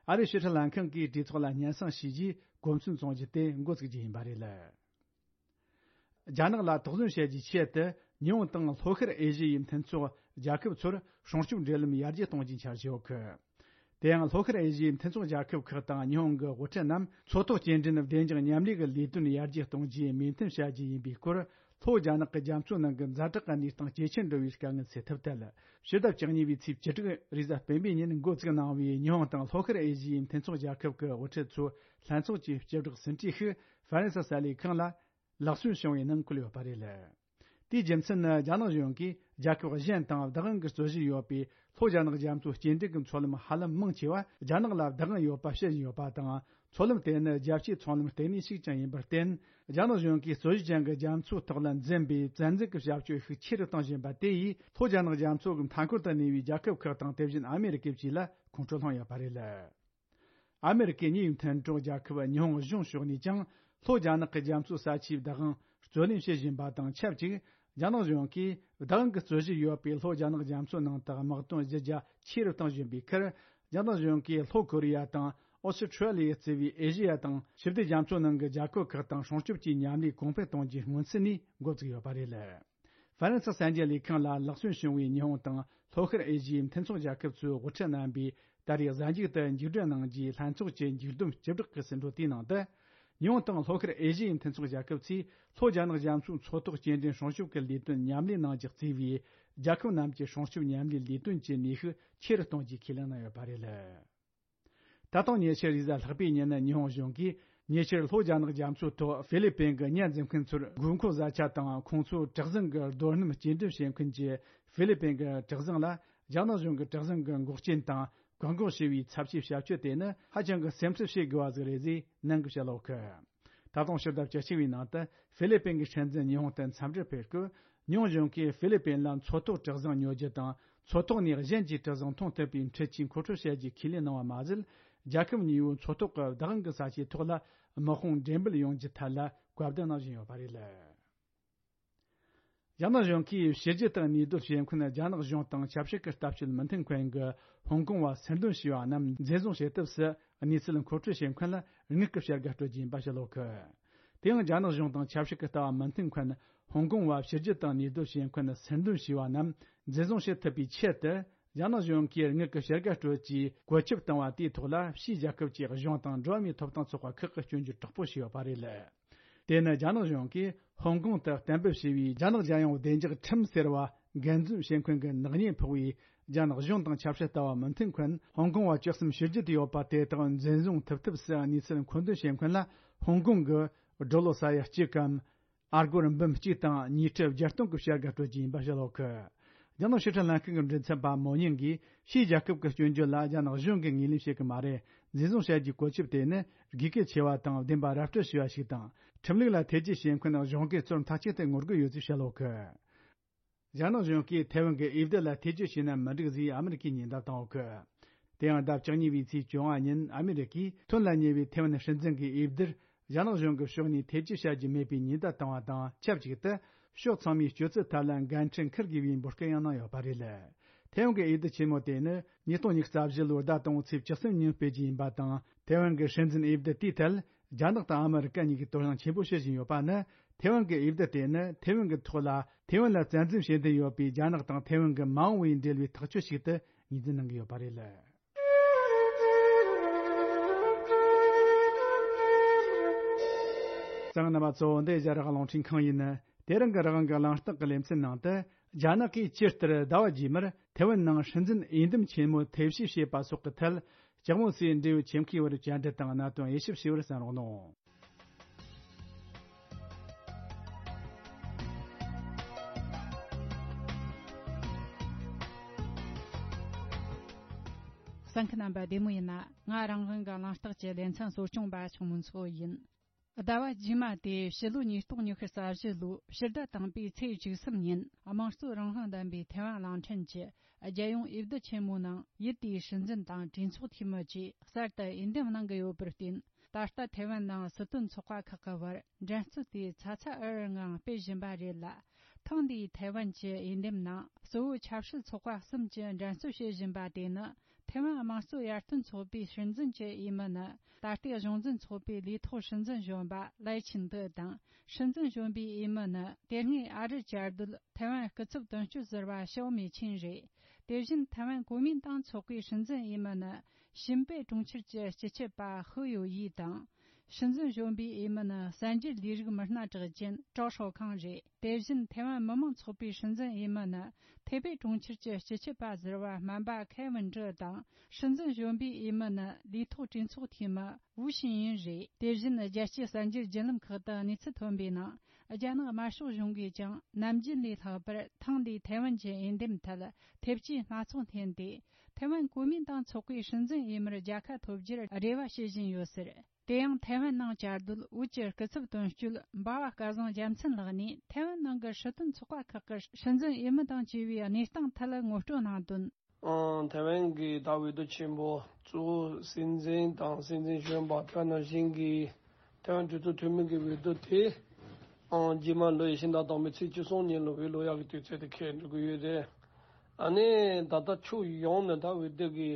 ཨ་རིའི་ཕྱི་སྲིད་ལྷན་ཁང་གིས་གྲོས་ཚོགས་ལ་སྙན་སེང་ཞུས་རྗེས་གོ་མཚོན་བཙོང་རྒྱུ་དེ་འགོ་བཙུགས་རྒྱུ་ཡིན་པ་རེད། རྒྱ་ནག་ལ་དོགས་ཟོན་བྱེད་རྒྱུའི་ཆེད་དུ། ཉི་ཧོང་དང་ལྷོ་ཤར་ཨེ་ཤི་ཡའི་མཐུན་ཚོགས་རྒྱལ་ཁབ་ཚོར་སྲུང་སྐྱོབ་འབྲེལ་ལམ་ཡར་རྒྱས་གཏོང་རྒྱུའི་འཆར་གཞི་ཡོད་གི། དེ་ཡང་ལྷོ་ཤར་ཨེ་ཤི་ཡའི་མཐུན་ཚོགས་རྒྱལ་ཁབ་ཁག་དང་ཉི་ཧོང་གི་དབུ་ཁྲིད་རྣམས་མཚོ་ཐོག་སྐྱེལ་འདྲེན་བདེ་འཇགས་མཉམ་ལས་ཀྱི་ལས་དོན་ཡར་རྒྱས་གཏོང་རྒྱུའི་མོས་མཐུན་བྱ་རྒྱུ་ཡིན་པའི་སྐོར། ལྷོ་རྒྱ་ནག་གི་རྒྱ་མཚོའི་ནང་གི་ཛ་དྲག་གི་གནས་སྟངས་ཇེ་ཆེར་འགྲོ་བའི་དཀའ་ངལ་སེལ་ཐབས་ཐད། ཕྱི་ཟླ་བཅུ་གཉིས་པའི་ཚེས་བཅུ་དྲུག་རེས་གཟའ་སྤེན་པའི་ཉིན་འགོ་བཙུགས་གནང་བའི་ཉི་ཧོང་དང་ལྷོ་ཤར་ཨེ་ཤི་ཡའི་མཐུན་ཚོགས་རྒྱལ་ཁབ་ཀྱི་དབུ་ཁྲིད་ཚོའི་ལྷན་ཚོགས་ཀྱི་སྤྱི་བསྒྲགས་ཟིན་བྲིས་ཤིག་ཧྥ་རན་སི་གསར་ལས་ཁང་ལ་ལག་སོན་བྱུང་བའི་ནང་བཀོད་ཡོད་པ་རེད། དེའི་རྒྱུ་མཚན་ནི། རྒྱ་ནག་གཞུང་གིས་རྒྱལ་ཁབ་གཞན་དང་བདག་དབང་གི་རྩོད་གཞི་ཡོད་པའི་ལྷོ་རྒྱ་ནག་རྒྱ་མཚོའི་སྐྱེལ་འདྲེན་གྱི་མཚོ་ལམ་ཧ་ལམ་མང་ཆེ་བ་རྒྱ་ནག་ལ་བདག་དབང་ཡོད་པ་བཤད་བཞིན་ཡོད་པ་དང་། མཚོ་ལམ་དེ་ནི་རྒྱལ་སྤྱིའི་ཚོང་ལམ་ལྟེ་གནས་ཤིག་ཀྱང་ཡིན་པར་བརྟེན། རྒྱ་ནག་གཞུང་གིས་རྩོད་གཞི་ཅན་གྱི་རྒྱ་མཚོའི་ཐོག་ལ་འཛིན་པའི་བཙན་འཛུལ་གྱི་བྱ་སྤྱོད་ཤུགས་ཆེ་རུ་གཏོང་བཞིན་པ་དེ་ཡིས། ལྷོ་རྒྱ་ནག་རྒྱ་མཚོ་གི་མཐའ་འཁོར་དུ་གནས་པའི་རྒྱལ་ཁབ་ཁག་དང་། དེ་བཞིན་ཨ་མེ་རི་ཀའི་བཅས་ལ་ཁོང་ཁྲོ་སློང་ཡོད་པ་རེད། ཨ་མེ་རི་ཀའི་གཉིས་ཡོད་མཐུན་གྲོགས་རྒྱལ་ཁབ་ཉི་ཧོང་གཞུང་ཕྱོགས་ནས་ཀྱང་། ལྷོ་རྒྱ་ནག་གི་རྒྱ་མཚོའི་ས་ཆའི་བདག་དབང་རྩོད་ལེན་བྱེད་བཞིན་པ་དང་ཆབས་ཅིག་རྒྱ་ནག་གཞུང་གིས་བདག་དབང་གི་རྩོད་གཞི་ཡོད་པའི་ལྷོ་རྒྱ་ནག་རྒྱ་མཚོའི་ནང་དུ་དམག་དོན་གཞི་རྒྱ་ཆེ་རུ་གཏོང་བཞིན་པའི་ཁར། རྒྱ་ནག་གཞུང་གིས་ལྷོ་ཀོ་རི་ཡ་དང་ཨོ་སི་ཁྲུ་ལི་ཡ་གཙོས་པའི་ཨེ་ཤི་ཡ་དང་ཞི་བདེ་རྒྱ་མཚོའི་ནང་གི་རྒྱལ་ཁབ་ཁག་དང་སྲུང་སྐྱོབ་ཀྱི་མཉམ་ལས་གོང་འཕེལ་གཏོང་རྒྱུའི་སྔོན་ཚུད་ནས་འགོ་བཙུགས་ཡོད་པ་རེད། ཧྥ་རན་སི་གསར་འགྱུར་ལས་ཁང་ལ་ལག་སོན་བྱུང་བའི་ཉི་ཧོང་དང་ལྷོ་ཤར་ཨེ་ཤི་ཡའི་མཐུན་ཚོགས་རྒྱལ་ཁབ་ཚོའི་དབུ་ཁྲིད་རྣམ་པས་ད་རེས་གཟའ་མཇུག་ཏུ་མཇུག་སྒྲིལ་གནང་རྒྱུའི་ལྷན་ཚོགས་ཀྱི་མཇུག་བསྡོམས་སྤྱི་བསྒྲགས་ཀྱི་ཟིན་བྲིས་དེའི་ནང་དུ། ཉི་ཧོང་དང་ལྷོ་ཤར་ཨེ་ཤི་ཡའི་མཐུན་ཚོགས་རྒྱལ་ཁབ་ཚོས་ལྷོ་རྒྱ་ནག་རྒྱ་མཚོའི་མཚོ་ཐོག་སྐྱེལ་འདྲེན་སྲུང་སྐྱོབ་ཀྱི་ལས་དོན་མཉམ་ལས་གནང་རྒྱུ་གཙོས་པའི་རྒྱལ་ཁབ་རྣམས་ཀྱི་སྲུང་སྐྱོབ་མཉམ་ལས་ལས་དོན་གྱི་ནུས་ཤུགས་ཆེ་རུ་གཏོང་རྒྱུའི་ཁས་ལེན་གནང་ཡོད་པ་རེད། ད་དུང་ཉེ་ཆར་རེས་གཟའ་ལྷག་པའི་ཉིན་ཉི་ཧོང་གཞུང་གིས་ཉེ་ཆར་ལྷོ་རྒྱ་ནག་རྒྱ་མཚོའི་ཐོག་ཧྥི་ལི་པིན་གྱི་ཉ་འཛིན་མཁན་ཚོར་དགོས་མཁོ་བཟའ་ཆས་དང་ཁོང་ཚོའི་གྲུ་གཟིངས་ཀྱི་རྡོ་སྣུམ་སྐྱེལ་འདྲེན་བྱེད་མཁན་གྱི་ཧྥི་ལི་པིན་གྱི་གྲུ་གཟིངས་ལ་རྒྱ་ནག་གཞུང་གི་གྲུ་གཟིངས་ཀྱི་འགོག་རྐྱེན་དང་བཀག་འགོག་བྱས་པའི་ཚབས་ཆེའི་བྱ་སྤྱོད་དེ་ནི་ཧ་ཅང་གི་སེམས་ཁྲལ་བྱེད་དགོས་པ་ཟིག་རེད་ཅེས་ནན་གྱིས་བཤད་ཡོད་གི། ད་དུང་ཕྱི་ཟླ་བཅུ་གཅིག་པའི་ནང་དུ་ཧྥི་ལི་པིན་གྱི་སྲིད་འཛིན་ཉི་ཧོང་དུ་འཚམས་འདྲིར་ཕེབས་སྐབས། ཉི་ཧོང་གཞུང་གིས་ཧྥི་ལི་པིན་ལ་མཚོ་ཐོག་གྲུ་གཟིངས་ཉོ་རྒྱུ་དང་མཚོ་ཐོག་ནས་གཞན་གྱི་གྲུ་གཟིངས་མཐོང་ཐུབ་པའི་འཕྲུལ་ཆས་མཁོ་སྤྲོད་བྱ་རྒྱུའི་ཁས་ལེན་གནང་བ་མ་ཟད། རྒྱལ་ཁབ་གཉིས་པོའི་མཚོ་ཐོག་གི་བདག་དབང་གི་ས་ཆའི་ཐོག་ལ་དམག་དཔུང་འགྲེམས་སྤེལ་ཡོང་རྒྱུའི་ཐད་ལ་བཀའ་བསྡུར་གནང་བཞིན་ཡོད་པ་རེད། རྒྱ་ནག་གཞུང་གིས་ཕྱི་རྒྱལ་དང་གནས་སྡོད་བྱེད་མཁན་རྒྱ་ནག་གཞུང་དང་ཆབ་སྲིད་ཀྱི་ལྟ་སྤྱོད་མི་མཐུན་མཁན་གྱི་ཧོང་ཀོང་བ་སེར་འདོན་བྱས་པ་རྣམས་འཛིན་བཟུང་བྱེད་ཐབས་སུ་གནས་ཚུལ་མཁོ་སྤྲོད་བྱེད་མཁན་ལ་དངུལ་གྱི་བྱ་དགའ་སྤྲོད་རྒྱུ་ཡིན་པ་བཤད་ཡོད་གི། དེ་ཡང་རྒྱ་ནག་གཞུང་དང་ཆབ་སྲིད་ཀྱི་ལྟ་བ་མི་མཐུན་མཁན་ཧོང་ཀོང་བ་ཕྱི་རྒྱལ་དང་གནས་སྡོད་བྱེད་མཁན་སེར་འདོན་བྱས་པ་རྣམས་འཛིན་བཟུང་བྱེད་ཐུབ་པའི་ཆེད་དུ། རྒྱ་ནག་གཞུང་གིས་དངུལ་གྱི་བྱ་དགའ་སྤྲོད་ཀྱིས་བཀོད་ཁྱབ་བཏང་བ་དེའི་ཐོག་ལ་ཕྱིའི་རྒྱལ་ཁབ་ཀྱི་གཞུང་དང་འགྲོ་བ་མིའི་ཐོབ་ཐང་ཚོགས་པ་ཁག་གིས་སྐྱོན་བརྗོད་དྲག་པོ་བྱས་ཡོད་པ་རེད། དེ་ནི་རྒྱ་ནག་གཞུང་གིས་ཧོང་ཀོང་དུ་གཏན་འབེབས་བྱས་པའི་རྒྱ་ནག་རྒྱལ་ཡོངས་བདེ་འཇགས་ཁྲིམས་ཟེར་བ་འགན་འཛིན་བྱེད་མཁན་གྱི་ནག་ཉེས་ཕོག་པའི་རྒྱ་ནག་གཞུང་དང་ཆབ་སྲིད་ལྟ་བ་མི་མཐུན་མཁན་ཧོང་ཀོང་བ་བཅུ་གསུམ་ཕྱི་རྒྱལ་དུ་ཡོད་པ་དེ་དག་འཛིན་བཟུང་ཐུབ་ཐབས་སུ་གནས་ཚུལ་མཁོ་འདོན་བྱེད་མཁན་ལ་ཧོང་ཀོང་གི་ཌོ་ལར་ས་ཡ་གཅིག་གམ། ཨ་སྒོར་འབུམ་གཅིག་དང་ཉིས་ཁྲི་བརྒྱད་སྟོང་གི་བྱ་དགའ་སྤྲོད་རྒྱུ་ཡིན་པ་བཤད་ཡོད་གི། རྒྱ་ནག་ཕྱི་ཁྲིད་ལྷན་ཁང་གི་མགྲིན་ཚབ་པ་མོ་ཉིང་གིས་ཕྱིའི་རྒྱལ་ཁབ་ཀྱི་སྐྱོན་བརྗོད་ལ་རྒྱ་ནག་གཞུང་གིས་ངོས་ལེན་བྱེད་ཀྱི་མ་རེད། འཛིན་བཟུང་བྱ་རྒྱུའི་བཀོད་ཁྱབ་དེ་ནི་དགོས་གལ་ཆེ་བ་དང་བདེན་པ་ར་སྤྲོད་བྱས་པ་ཞིག་དང་། ཁྲིམས་ལུགས་ལ་ཐེ་ཇུས་བྱེད་མཁན་གཞུང་གི་གཙོ་བོར་མཐའ་གཅིག་ཏུ་ངོ་རྒོལ་ཡོད་ཅེས་བཤད་ཡོད་གི། རྒྱ་ནག་གཞུང་གིས་ཐའེ་ཝན་གྱི་འོས་བསྡུ་ལ་ཐེ་ཇུས་བྱས་ན་མི་འགྲིག་ཟེར་ཨ་མི་རི་ཀས་ཉེན་བརྡ་བཏང་ཡོད་གི། དེ་ཡང་ཟླ་བཅུ་གཉིས་པའི་ཚེས་བཅོ་ལྔ་ཉིན་ཨ་མི་རི་ཀས་ཐོན་ལ་ཉེ་བའི་ཐའེ་ཝན་སྲིད་འཛིན་གྱི་འོས་བསྡུར་རྒྱ་ནག་གཞུང་གི་ཕྱོགས་ནས་ཐེ་ཇུས་བྱ་རྒྱུ་མེད་པའི་ཉེན་བརྡ་བཏང་བ་དང་ཆབས་ཅིག་ཏུ། ཕྱོགས་ཚང་མས་སྤྱོད་ཚུལ་ཐད་ལ་འགན་འཁྲི་འཁུར་དགོས་པའི་འབོད་སྐུལ་ཡང་གནང་ཡོད་པ་རེད། ཐའེ་ཝན་གྱི་འོས་བསྡུ་ཆེན་མོ་དེ་ནི་ཉིས་སྟོང་ཉི་ཤུ་རྩ་བཞི་ལོའི་ཟླ་དང་པོའི་ཚེས་བཅུ་གསུམ་ཉིན་སྤེལ་རྒྱུ་ཡིན་པ་དང་། ཐའེ་ཝན་གྱི་སྲིད་འཛིན་འོས་བསྡུ་དེའི་ཐད། རྒྱ་ནག་དང་ཨ་མི་རི་ཀ་གཉིས་ཀྱིས་དོ་སྣང་ཆེན་པོ་བྱེད་བཞིན་ཡོད་པ་ནི། ཐའེ་ཝན་གྱི་འོས་བསྡུ་དེ་ནི་ཐའེ་ཝན་གྱི་ཐོག་ལ་ཐའེ་ཝན་ལ་བཙན་འཛུལ་བྱེད་འདུན་ཡོད་པའི་རྒྱ་ནག་དང་ཐའེ་ཝན་གྱི་མ་འོངས་པའི་འབྲེལ་བའི་ཐག་གཅོད་ཞིག་ཏུ་ངོས་འཛིན་གནང་གི་ཡོད་པ་རེད། གསན་མཁན་རྣམ་པ་ཚོ། འདི་རྒྱ་རིགས་རླུང་འཕྲིན་ཁང་ཡིན། དེ་རིང་གི་རང་དབང་གི་གླེང་སྟེགས་ཀྱི་ལེ་ཚན་ནང་དུ། རྒྱ་ནག་གིས་ཇི་ལྟར་ཟླ་བ་རྗེས་མར་ཐའེ་ཝན་ནང་སྲིད་འཛིན་འོས་འདེམས་ཆེན་མོ་ཐེ་བྱུས་བྱེད་པ་སོགས་ཀྱི་ཐད། ལྕགས་མོ་སའི་འབྲེལ་ཡོད་ཁྱིམ་མཁས་བར་བཅར་འདྲི་དང་གནད་དོན་དབྱེ་ཞིབ་བྱས་པར་གསན་རོགས་གནང་། གསན་མཁན་རྣམ་པ་བདེ་མོ་ཡིན་ན། ང་རང་དབང་གི་གླེང་སྟེགས་ཀྱི་ལེ་ཚན་གཙོ་སྐྱོང་པ་ཆུང་མོ་མཚོ་ཡིན། ཟླ་བ་རྗེས་མ་སྟེ་ཕྱི་ལོ་ཉིས་སྟོང་ཉི་ཤུ་རྩ་བཞི་ལོའི་ཕྱི་ཟླ་དང་པོའི་ཚེས་བཅུ་གསུམ་ཉིན། དམངས་གཙོའི་རང་དབང་ལྡན་པའི་ཐའེ་ཝན་གླིང་ཕྲན་གྱི་རྒྱལ་ཡོངས་འོས་བསྡུ་ཆེན་མོའི་ནང་ཡུལ་དེའི་སྲིད་འཛིན་དང་གྲོས་ཚོགས་འཐུས་མི་བཅས་གསར་དུ་འོས་འདེམས་གནང་གི་ཡོད་པར་བརྟེན། ད་ལྟ་ཐའེ་ཝན་ནང་སྲིད་དོན་ཚོགས་པ་ཁག་གི་བར་འགྲན་རྩོད་དེ་ཚ་ཚ་འུར་འུར་ངང་སྤེལ་བཞིན་པ་རེད་ལ། ཐེངས་འདིའི་ཐའེ་ཝན་གྱི་འོས་འདེམས་ནང་གཙོ་བོ་ཆབ་སྲིད་ཚོགས་པ་གསུམ་གྱིས་འགྲན་རྩོད་བྱེད་བཞིན་པ་དེ་ནི། ཐའེ་ཝན་དམངས་གཙོ་ཡར་ཐོན་ཚོགས་པའི་སྲིད་འཛིན་གྱི་འོས་མི་ནི། ད་ལྟའི་གཞུང་འཛིན་ཚོགས་པའི་ལས་ཐོག་སྲིད་འཛིན་གཞོན་པ་ལའེ་ཆིན་ཏེ་དང་། སྲིད་འཛིན་གཞོན་པའི་འོས་མི་ནི། དེ་སྔའི་ཨ་རིར་བཅའ་སྡོད་ཐའེ་ཝན་སྐུ་ཚབ་དོན་གཅོད་ཟུར་པ་ཞའོ་མེ་ཆིན་རེད། དེ་བཞིན་ཐའེ་ཝན་གོ་མིན་ཏང་ཚོགས་པའི་སྲིད་འཛིན་འོས་མི་ནི། ཤིན་པེ་གྲོང་ཁྱེར་གྱི་སྤྱི་ཁྱབ་པ་ཧུ་ཡོ་ཡི་དང་། སྲིད་འཛིན་གཞོན་པའི་འོས་མི་ནི་གསར་འགྱུར་ལས་རིགས་མི་སྣ་གྲགས་ཅན་ཀྲའོ་ཧྲོ་ཁང་རེད། དེ་བཞིན་ཐའེ་ཝན་མི་དམངས་ཚོགས་པའི་སྲིད་འཛིན་འོས་མི་ནི་ཐེ་པེ་གྲོང་ཁྱེར་གྱི་སྤྱི་ཁྱབ་པ་ཟུར་པ་སྨན་པ་ཁེ་ཝིན་ཀྲི་དང་། སྲིད་འཛིན་གཞོན་པའི་འོས་མི་ནི་ལས་ཐོག་གྲོས་ཚོགས་འཐུས་མི་ཝུའུ་ཤིན་ཡིན་རེད། དེ་བཞིན་རྒྱལ་སྤྱིའི་གསར་འགྱུར་བརྒྱུད་ལམ་ཁག་ཏུ་གནས་ཚུལ་ཐོན་པའི་ནང་། རྒྱ་ནག་དམར་ཤོག་གཞུང་གིས་ཀྱང་ནམ་རྒྱུན་ལས་ལྷག་པར་ཐེངས་འདིའི་ཐའེ་ཝན་གྱི་འོས་འདེམས་ཐད་ཐེབས་ཇུས་སྣ་ཚོགས་འཐེན་ཏེ། ཐའེ་ཝན་གོ་མིན་ཏང་ཚོགས་པའི་སྲིད་འཛིན་འོས་མིར་རྒྱལ་ཁ་ཐོབ་རྒྱུར་རེ་བ་བྱེད་བཞིན་ཡོད་ཟེར། དེ་ཡང་ཐའེ་ཝན་ནང་བཅའ་སྡོད་བོད་ཀྱི་སྐུ་ཚབ་དོན་གཅོད་འབའ་བ་སྐལ་བཟང་རྒྱལ་མཚན་ལགས་ནས། ཐའེ་ཝན་ནང་གི་སྲིད་དོན་ཚོགས་པ་ཁག་གི་སྲིད་འཛིན་འོས་མི་དང་བཅས་པའི་གནས་སྟངས་ཐད་ངོ་སྤྲོད་གནང་དོན། ཨང་། ཐའེ་ཝན་གྱི་ད་འོས་བསྡུ་ཆེན་པོ་གཙོ་བོ་སྲིད་འཛིན་དང་སྲིད་འཛིན་གཞོན་པ་དེ་ནང་བཞིན་གྱི་ཐའེ་ཝན་གྲོས་ཚོགས་འཐུས་མི་གི་འོས་བསྡུ་དེ། ཨང་། རྗེས་མ་ལོ་ཡི་ཕྱི་ཟླ་དང་པོའི་ཚེས་བཅུ་གསུམ་ཉིན་ལ་འོས་བླུག་ཡག་གི་དུས་ཚོད་དེ་འཁེལ་འགྲོ་གི་ཡོད་རེད། ཨ་ནི་ད་ལྟ་ཕྱོགས་ཡོངས་ནས་ད་འོས་བསྡུ་གི་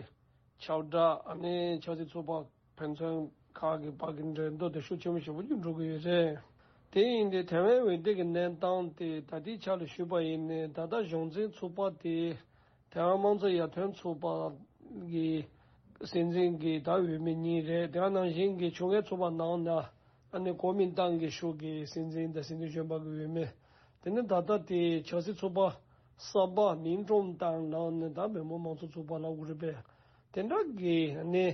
ཁྱབ་བསྒྲགས། ཨ་ནི་ཆབ་སྲིད་ཚོགས་པ་ཕན་ཚུན་ཁག་གི་བར་གྱི་འགྲན་བསྡུར་དེ་ཤུགས་ཆེན་པོ་ཞེ་པོ་ཅིག་འགྲོ་གི་ཡོད་རེད། དེ་ཡིན་དུས་ཐའེ་ཝན་འོས་བསྡུ་གི་གནས་སྟངས་དེ་ད་ལྟའི་ཆ་ལ་ཞུས་པ་ཡིན་ནའི། ད་ལྟ་གཞུང་འཛིན་ཚོགས་པ་དེ་ཐའེ་ཝན་དམངས་གཙོ་ཡར་ཐོན་ཚོགས་པ་གི་སྲིད་འཛིན་གྱི་ད་འོས་མི་གཉིས་རེད། དེ་ནང་བཞིན་གྱི་ཕྱོགས་འགལ་ཚོགས་པ་ནང་ན། ཨ་ནི་གོ་མིན་ཏང་གི་ཕྱོགས་ཀྱི་སྲིད་འཛིན་དང་སྲིད་འཛིན་གཞོན་པ་གི་འོས་མི། དེ་ནི་ད་ལྟ་དེ་ཆབ་སྲིད་ཚོགས་པ་གསར་པ་མིང་ཀྲུང་ཏང་ནང་ནས་ད་མི་མང་དམངས་གཙོ་ཚོགས་པ་ལབ་དགོས་རེད་པས། དེ་འདྲ་གི་ནི་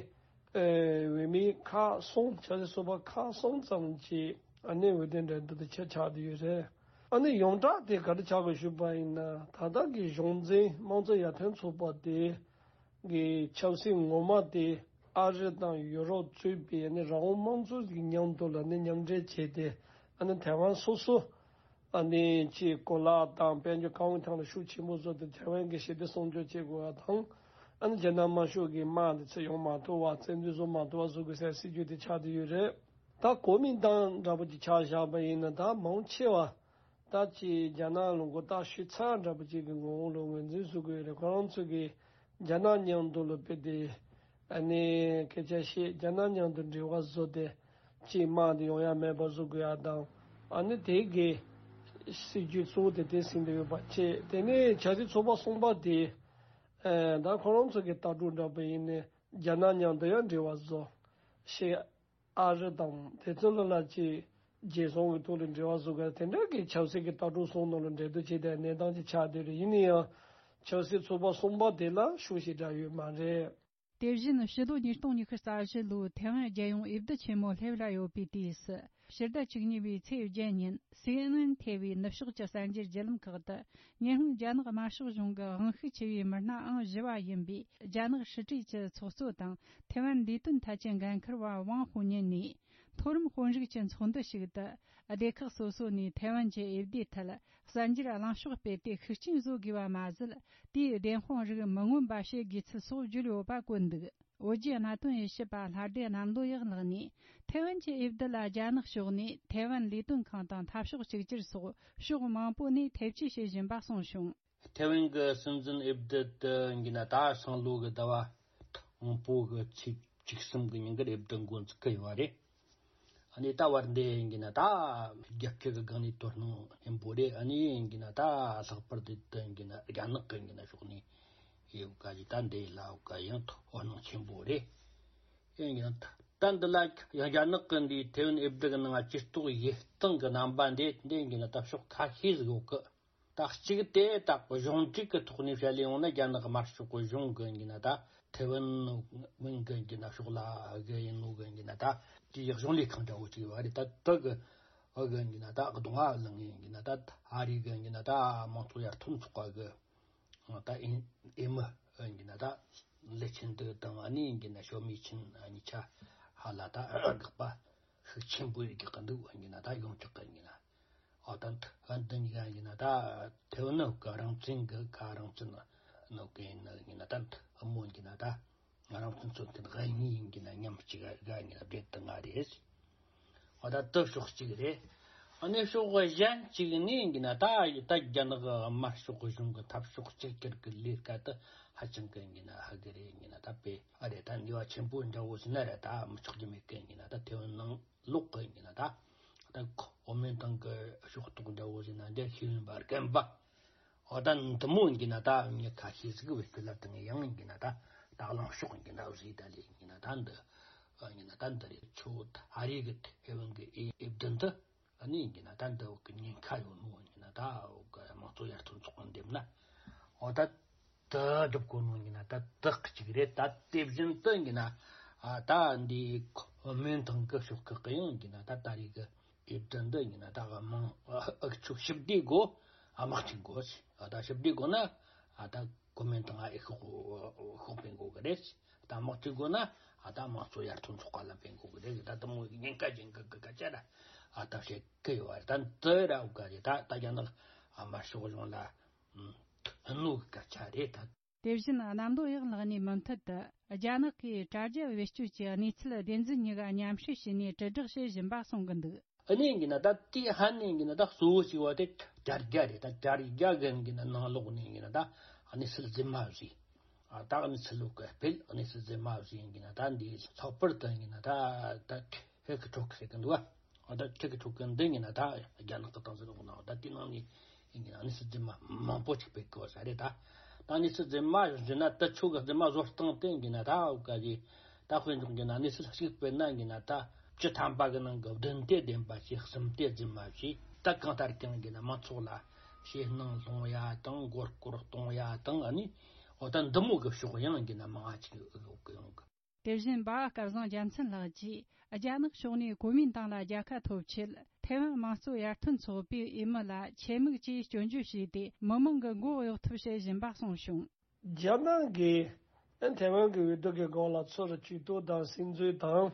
ཨེ་འོས་མི་ཁག་གསུམ། ཆབ་སྲིད་ཚོགས་པ་ཁག་གསུམ་ཙམ་གྱིས་ཨ་ནི་འོས་བསྡུ་འགྲན་བསྡུར་དེ་ཆེད་ཆགས་བསྡད་ཡོད་རེད། ཨ་ནི་ཡོངས་གྲགས་དེ་ག་རེ་ཆགས་དགོས་ཞུས་པ་ཡིན་ན། ད་ལྟ་གི་གཞུང་འཛིན་དམངས་གཙོ་ཡར་ཐོན་ཚོགས་པ་དེ་གི་ཆབ་སྲིད་ངོ་མ་དེ་ཨ་རི་དང་ཡུ་རོབ་གཙོས་པའི་ནི་རང་དབང་དམངས་གཙོ་གི་མཉམ་དུ་ལ་ནི་མཉམ་འབྲེལ་བྱས་ཏེ། ཨ་ནི་ཐའེ་ཝན་སོ་སོ་ཨ་ནི་ཅིག་གོ་ལག་དང་དཔལ་འབྱོར་གང་ཐང་ལ་ཤུགས་ཆེན་པོ་བཟོ་སྟེ་ཐའེ་ཝན་གྱི་ཞི་བདེ་སྲུང་སྐྱོབ་བྱེད་དགོས་པ་དང་། ཨ་ནི་རྒྱ་ནག་དམར་ཤོག་གི་དམག་འདི་ཚུར་ཡོང་མ་ཐུབ་པ། བཙན་འཛུལ་བཟོ་མ་ཐུབ་པ་བཟོ་དགོས་ཟེར་སྲིད་ཇུས་དེ་ཆགས་བསྡད་ཡོད་རེད། ད་གོ་མིན་ཏང་འདྲ་པོ་ཅིག་ཆ་བཞག་པ་ཡིན་ན། ད་མང་ཆེ་བ་ ད་ཅི་རྒྱ་ནག་ལ་མགོ་བཏགས་ཤོད་ཚར་འདྲ་པོ་ཅིག་གི་ངོ་བོ་ལ་ངོས་འཛིན་བཟོ་དགོས་རེད། ཁོ་རང་ཚོ་གི་རྒྱ་ནག་མཉམ་དུ་ལ་དཔེ་དེ་ཨ་ནི་སྐད་ཆ་བཤད། རྒྱ་ནག་མཉམ་དུ་འབྲེལ་བ་བཟོ་སྟེ་ཅིག་དམག་དེ་ཡོང་ཡ་མེད་པ་བཟོ་དགོས་ཡ་དང་། ཨ་ནི་དེ་གི་སྲིད་ཇུས་གཙོ་བོ་དེ་དེ་ཟིན་དུ་ཡོད་པ་བྱས། དེ་ནས་ཆབ་སྲིད་ཚོགས་པ་གསུམ་པ་དེ་ཨ་ད་ཁོ་རང་ཚོ་གི་ལྟ་གྲུབ་འདྲ་པོ་ཡིན་ནས་རྒྱ་ནག་མཉམ་དུ་ཡང་འབྲེལ་བ་བཟོ་ཤེས། ཨ་རི་དང་དེ་ཚོ་ལ་ལ་ཅིག་རྒྱལ་སྲུང་གི་ཐོག་ལ་འབྲེལ་བ་བཟོ་དགོས། དེ་འདྲ་གི་ཆབ་སྲིད་ཀྱི་ལྟ་གྲུབ་གསུམ་ནང་ལ་འབྲེལ་གཏུག་བྱེད་དེ་གནས་སྟངས་ཅིག་ཆགས་བསྡད་རེད། ཡིན་ན་ཡང་ཆབ་སྲིད་ཚོགས་པ་གསུམ་པ་དེ་ལ་ཤུགས་ཞེ་དྲག་ཡོད་མ་རེད། དེ་བཞིན་ཕྱི་ལོ་ཉིས་སྟོང་ཉི་ཤུ་རྩ་བཞི་ལོའི་ཐའེ་ཝན་རྒྱལ་ཡོངས་འོས་བསྡུ་ཆེན་མོ་སླེབས་ལ་ཡོད་པའི་དུས་སུ། ཕྱི་ཟླ་བཅུ་གཉིས་པའི་ཚེས་བརྒྱད་ཉིན་སི་ཨེན་ཨེན་ཐེ་བའི་ནུབ་ཕྱོགས་ཀྱི་གསར་འགྱུར་བརྒྱུད་ལམ་ཁག་ཏུ། ཉི་ཧོང་རྒྱ་ནག་དམར་ཤོག་གཞུང་གི་དབང་ཤུགས་ཆེ་བའི་མི་སྣ་ཨང་བཞི་བ་ཡིན་པའི་རྒྱ་ནག་ཧྲི་ཀྲུའུ་ཅི་ཚོགས་གཙོ་དང་། ཐའེ་ཝན་ལས་དོན་ཐད་ཀྱི་འགན་འཁུར་བ་ཝང་ཧུ་ཉིན་ནས། མཐོ་རིམ་དཔོན་རིགས་ཀྱི་ཚོགས་འདུ་ཞིག་ཏུ། སྡེ་ཁག་སོ་སོ་ནས་ཐའེ་ཝན་གྱི་འོས་བསྡུའི་ཐད། གསར་འགྱུར་གླེང་ཕྱོགས་སྤེལ་ཏེ་ཤུགས་རྐྱེན་བཟོ་དགོས་པ་མ་ཟད། དེའི་བདེན་དཔང་རིགས་མི་མངོན་པ་བྱེད་དགོས་ཚུལ་སོགས་བརྗོད་ཡོད་པ་བཀོད་འདུག། བོད་བརྒྱུད་གནད་དོན་དབྱེ་ཞིབ་པ་ལྷ་སྡེ་གནམ་ལོ་ཡག་ལགས་ནས། ཐའེ་ཝན་གྱི་འོས་བསྡུ་ལ་རྒྱ་ནག་ཕྱོགས་ནས་ཐའེ་ཝན་ལས་དོན་ཁང་དང་འཐབ་ཕྱོགས་གཅིག་གྱུར་སོགས་ཕྱོགས་མང་པོ་ནས་ཐེ་བྱུས་བྱེད་བཞིན་པ་གསུངས་བྱུང་། ཐའེ་ཝན་གྱི་སྲིད་འཛིན་འོས་བསྡུ་དེ་ཡིན་གྱི་ན་ད་སང་ལོ་གི་ཟླ་བ་དང་པོ་གི་ཚེས་བཅུ་གསུམ་གྱི་ཉིན་གྱི་འོས་བསྡུ་འགོ་འཛུགས་ཀྱི་ཡོད་པ་རེད། ཨ་ནི་ད་བར་འདི་ཡིན་གྱི་ན་ད་རྒྱལ་སྤྱི་གི་སྒང་ནས་དོ་སྣང་ཆེན་པོ་རེད། ཨ་ནི་ཡིན་གྱི་ན་ད་ལྷག་པར་དུ་དེ་ཡིན་གྱི་ན་རྒྱ་ནག་གི་ཡིན་གྱི་ན་ཕྱོགས་ནས་ཡོད་ག་ཞིག་ད་འདི་ལ་འོ་ག་ཡང་དོ་སྣང་ཆེན་པོ་རེད། ཡིན་གྱི་ན་ད་འདི་ལ་ཡང་རྒྱ་ནག་གི་འདིའི་ཐའེ་ཝན་འོས་བསྡུ་གི་ནང་སྤྱི་ཚོགས་ཡིད་སྟངས་ཀྱི་རྣམ་པ་འདི་འདི་ཡིན་གྱི་ན་ད་ཕྱོགས་ཁ་ཤས་ཟིག་ཡོད་གི། ད་གཅིག་དེ་ད་གཞུང་འབྲེལ་གྱི་ཐོག་ནས་བཤད་ལས་ཡོང་ན་རྒྱ་ནག་དམར་ཤོག་གི་གཞུང་གི་ཡིན་ན་ད་ཐའེ་ཝན་ཝན་གི་ཡིན་ན་ཕྱོགས་ལ་གི་ཡིན་ནོ་གི་ཡིན་ན་ད་དེའི་གཞུང་ལས་ཁང་འདྲ་བོ་ཅིག་ཡོད་རེད། ད་དེ་གི་ཨ་གི་ཡིན་ན་ད་གདོང་ཨ་ལང་ཡིན་ན་ད་ཨ་རི་གི་ཡིན་ན་ད་དམངས་གཙོ་ཡར་ཐོན་ཚོགས་པ་གི་ད་ཨིན་ཨེ་མི་ཡིན་ན་ད་ལི་ཆིན་ཏེ་དང་ཨ་ནི་ཡིན་ན་ཞོ་མི་ཆིན་གཉིས་ཆ་ཧ་ལ་ད་དགག་པ་ཤུགས་ཆེན་པོ་ཡོད་ཀྱི་འདུག་ཡིན་ན་ད་ཡོང་ཆོག་གི་ཡིན་ན། ཨོ་ད་འདི་འདི་གཉིས་ཀ་ཡིན་ན་ད་ཐའེ་ཝན་ནི་ག་རང་བཙན་གི་ག་རང་བཙན་ནོ་གི་ཡིན་ན་ད་འདི་ཨ་མོ་ཡིན་ན་ད་རང་བཙན་རྩོད་མཁན་ག་གཉིས་ཡིན་གྱི་ན་མཉམ་གཅིག་ག་ཡིན་ན་སྦྲེལ་དུ་ང་རེད། ཨོ་ད་དེ་ཕྱོགས་གཅིག་རེད། ཨ་ནི་ཕྱོགས་གཞན་གཅིག་ནས་ཡིན་གྱི་ན་ད་ད་རྒྱ་ནག་དམར་ཤོག་གཞུང་གི་འཐབ་ཕྱོགས་གཅིག་གྱུར་གྱི་ལས་ཀ་དེ་ཧ་ཅང་གི་ཡིན་གྱི་ན་ཧ་གི་རེད། ཡིན་གྱི་ན་ད་དཔེ་ཨ་རེད། ད་ནུས་པ་ཆེན་པོ་འདྲ་བོ་ཟིན་ན་རེད། ད་མི་ཆོག་རྒྱུ་མེད་གི་ཡིན་གྱི་ན་ད་ཐའེ་ཝན་ནང་ལོག་གི་ཡིན་ན་ད། ད་ཁོ་འོ་མའི་ཐང་གི་ཕྱོགས་གཏོགས་འདྲ་བོ་ཟེར་ན་འདི་ཤེས་ཡོན་པ་རྒན་པ། འོ་ད་འདི་མོ་ཡིན་ན་ད་མྱི་ཁ་ཤས་ཟིག་བེད་སྤྱོད་ལ་བཏང་ཡང་ཡིན་ན་ད་ད་གླེང་ཕྱོགས་ཡིན་ན་བཟོས་ད་ལས་ཡིན་ན་ད་འདི་ཡིན་ན་ད་འདི་རེད། ཆུ་བོ་ཨ་རི་གི་ཐའེ་ཝན་གི་ཨེ་ཨེ་བདུན་དུ་ཨ་ནི་ཡིན་ན་ད་འདི་བོ་གི་ཉེན་ཁ་ཡོད་ནོ་ཡིན་ན་ད་འོ་གི་དམངས་གཙོ་ཡར་ཐོན་ཚོགས་པ་འདེམས་ན་འོ་ད། དུ་སྒྲུབ་དགོས་ནོ་ཡིན་ན་ད་དག་གཅིག་རེད། ད་དེ་བཞིན་དུ་ཡིན་ན་ཨ་ད་འདི་ཁོ་མིན་ཐང་གི་ཕྱོགས་ཁག་གི་ཡང་ཡིན་ན་ད་ད་རེས་གི་ཨེ་བདུན་འདི་ཡིན་ན་ད་དམངས་ཨ་ཨུ་ཚུགས་ཞི་བདེ་དགོས། ཨ་དམག་ཆེན་དགོས། ཨ་ད་ཞི་བདེ་དགོས་ན་ཨ་ད་ཁོ་མིན་ཐང་ཨ་ཨེ་ཤོག་ཤོག་སྤེལ་དགོས་གི་རེད། ད་དམག་ཆེན་དགོས་ན་ཨ་ད་དམངས་གཙོ་ཡར་ཐོན་ཚོགས་པ་ལ་སྤེལ་དགོས་གི་རེད། ད་དེ་མོ་ཉེན་ཁ་ཅན་གི་གི་སྐད་ཆ་ར་ཨ་ད་བཤད་གི་ཡོད་རེད། ད་འདི་ར་འུ་ག་རེད། ད་ད་རྒྱ་ནག་ཨ་དམར་ཤོག་གཞུང་ལ་ཨ་ནུ་གི་སྐད་ཆ་རེད་ད། དེ་བཞིན་གནམ་ལོ་ཡག་ལགས་ནས་མུ་མཐུད་དུ་རྒྱ་ནག་གིས་དྲ་རྒྱ་བེད་སྤྱོད་ཀྱི་གནས་ཚུལ་བདེན་རྫུན་གཉིས་ཀ་མཉམ་བསྲེས་བྱས་ནས་དྲིལ་བསྒྲགས་བྱེད་བཞིན་པ་གསུང་གི་འདུག། ཨ་ནི་ཡིན་ན་ད་དེ་ཧ་ནི་ཡིན་ན་ད་གཙོ་བོ་ཞིག་བ་དེ་དྲ་རྒྱ་རེད། ད་དྲ་རྒྱ་གི་ཡིན་ན་ནང་ལོགས་ནས་ཡིན་ན་ད་གནས་ཚུལ་རྫུན་མ་བཟོས། ཨ་ད་གནས་ཚུལ་ལོག་གི་སྤེལ། གནས་ཚུལ་རྫུན་མ་བཟོས་ཡིན་ན་ད་འདི་ལྷག་པར་དུ་ཡིན་ན་ད་ད་ཧེ་གི་ཁྲོག་གི་ཟེར་གི་འདུག་བ། ཨ་ད་ཁྲིག་གི་ཁྲོག་གི་འདི་ཡིན་ན་ད་རྒྱ་ནག་གི་ཏང་སྲིད་ལོག་ནང་ད་དེ་ནང་ནས་ཡིན་ན་གནས་ཚུལ་རྫུན་མ་མང་པོ་ཅིག་སྤེལ་གི་བ་ས་རེད་ད། ད་གནས་ཚུལ་རྫུན་མ་བཟོས་ན་ད་ཆོ་གི་རྫུན་མ་བཟོ་སྟངས་དེ་ཡིན་ན་ད་འུ་ག་གི་ད་དཔེ་འཇོག་གི་ན་གནས་ཚུལ་གཅིག་སྤེལ་ན་ཡིན་ན་ད་བཅུ་ཐམ་པ་གི་ནང་གི་བདུན་དེ་བདེན་པ་བྱས། གསུམ་དེ་རྫུན་མ་བྱས། ད་གང་ལྟར་ཀྱང་ཡིན་ན་མང་ཚོགས་ལ་ཞེད་སྣང་སློང་ཡ་དང་མགོ་སྐོར་གཏོང་ཡ་དང་། ཨ་ནི་འོ་ད་འདི་མོ་གི་ཕྱོགས་ཡང་ཡིན་ན་མང་ང་ཅིག་ཡོང་གི། དེ་བཞིན་འབའ་བ་སྐལ་བཟང་རྒྱལ་མཚན་ལགས་ཀྱིས་རྒྱ་ནག་ཕྱོགས་ནས་གོ་མིན་ཏང་ལ་རྒྱལ་ཁ་ཐོབ་ཆེད་ཐའེ་ཝན་དམངས་གཙོ་ཡར་ཐོན་ཚོགས་པའི་འོས་མི་ལ་ཆེད་དམིགས་ཀྱིས་སྐྱོན་བརྗོད་བྱས་ཏེ་མི་མང་གི་མགོ་གཡོག་ཐབས་བྱེད་བཞིན་པ་གསུངས་བྱུང་། རྒྱ་ནག་གིས་ཐའེ་ཝན་གྱི་འོས་བསྡུ་གི་སྐོར་ལ་ཚུར་ཇུས་གཏོགས་དང་སིམ་འཛུལ་དང་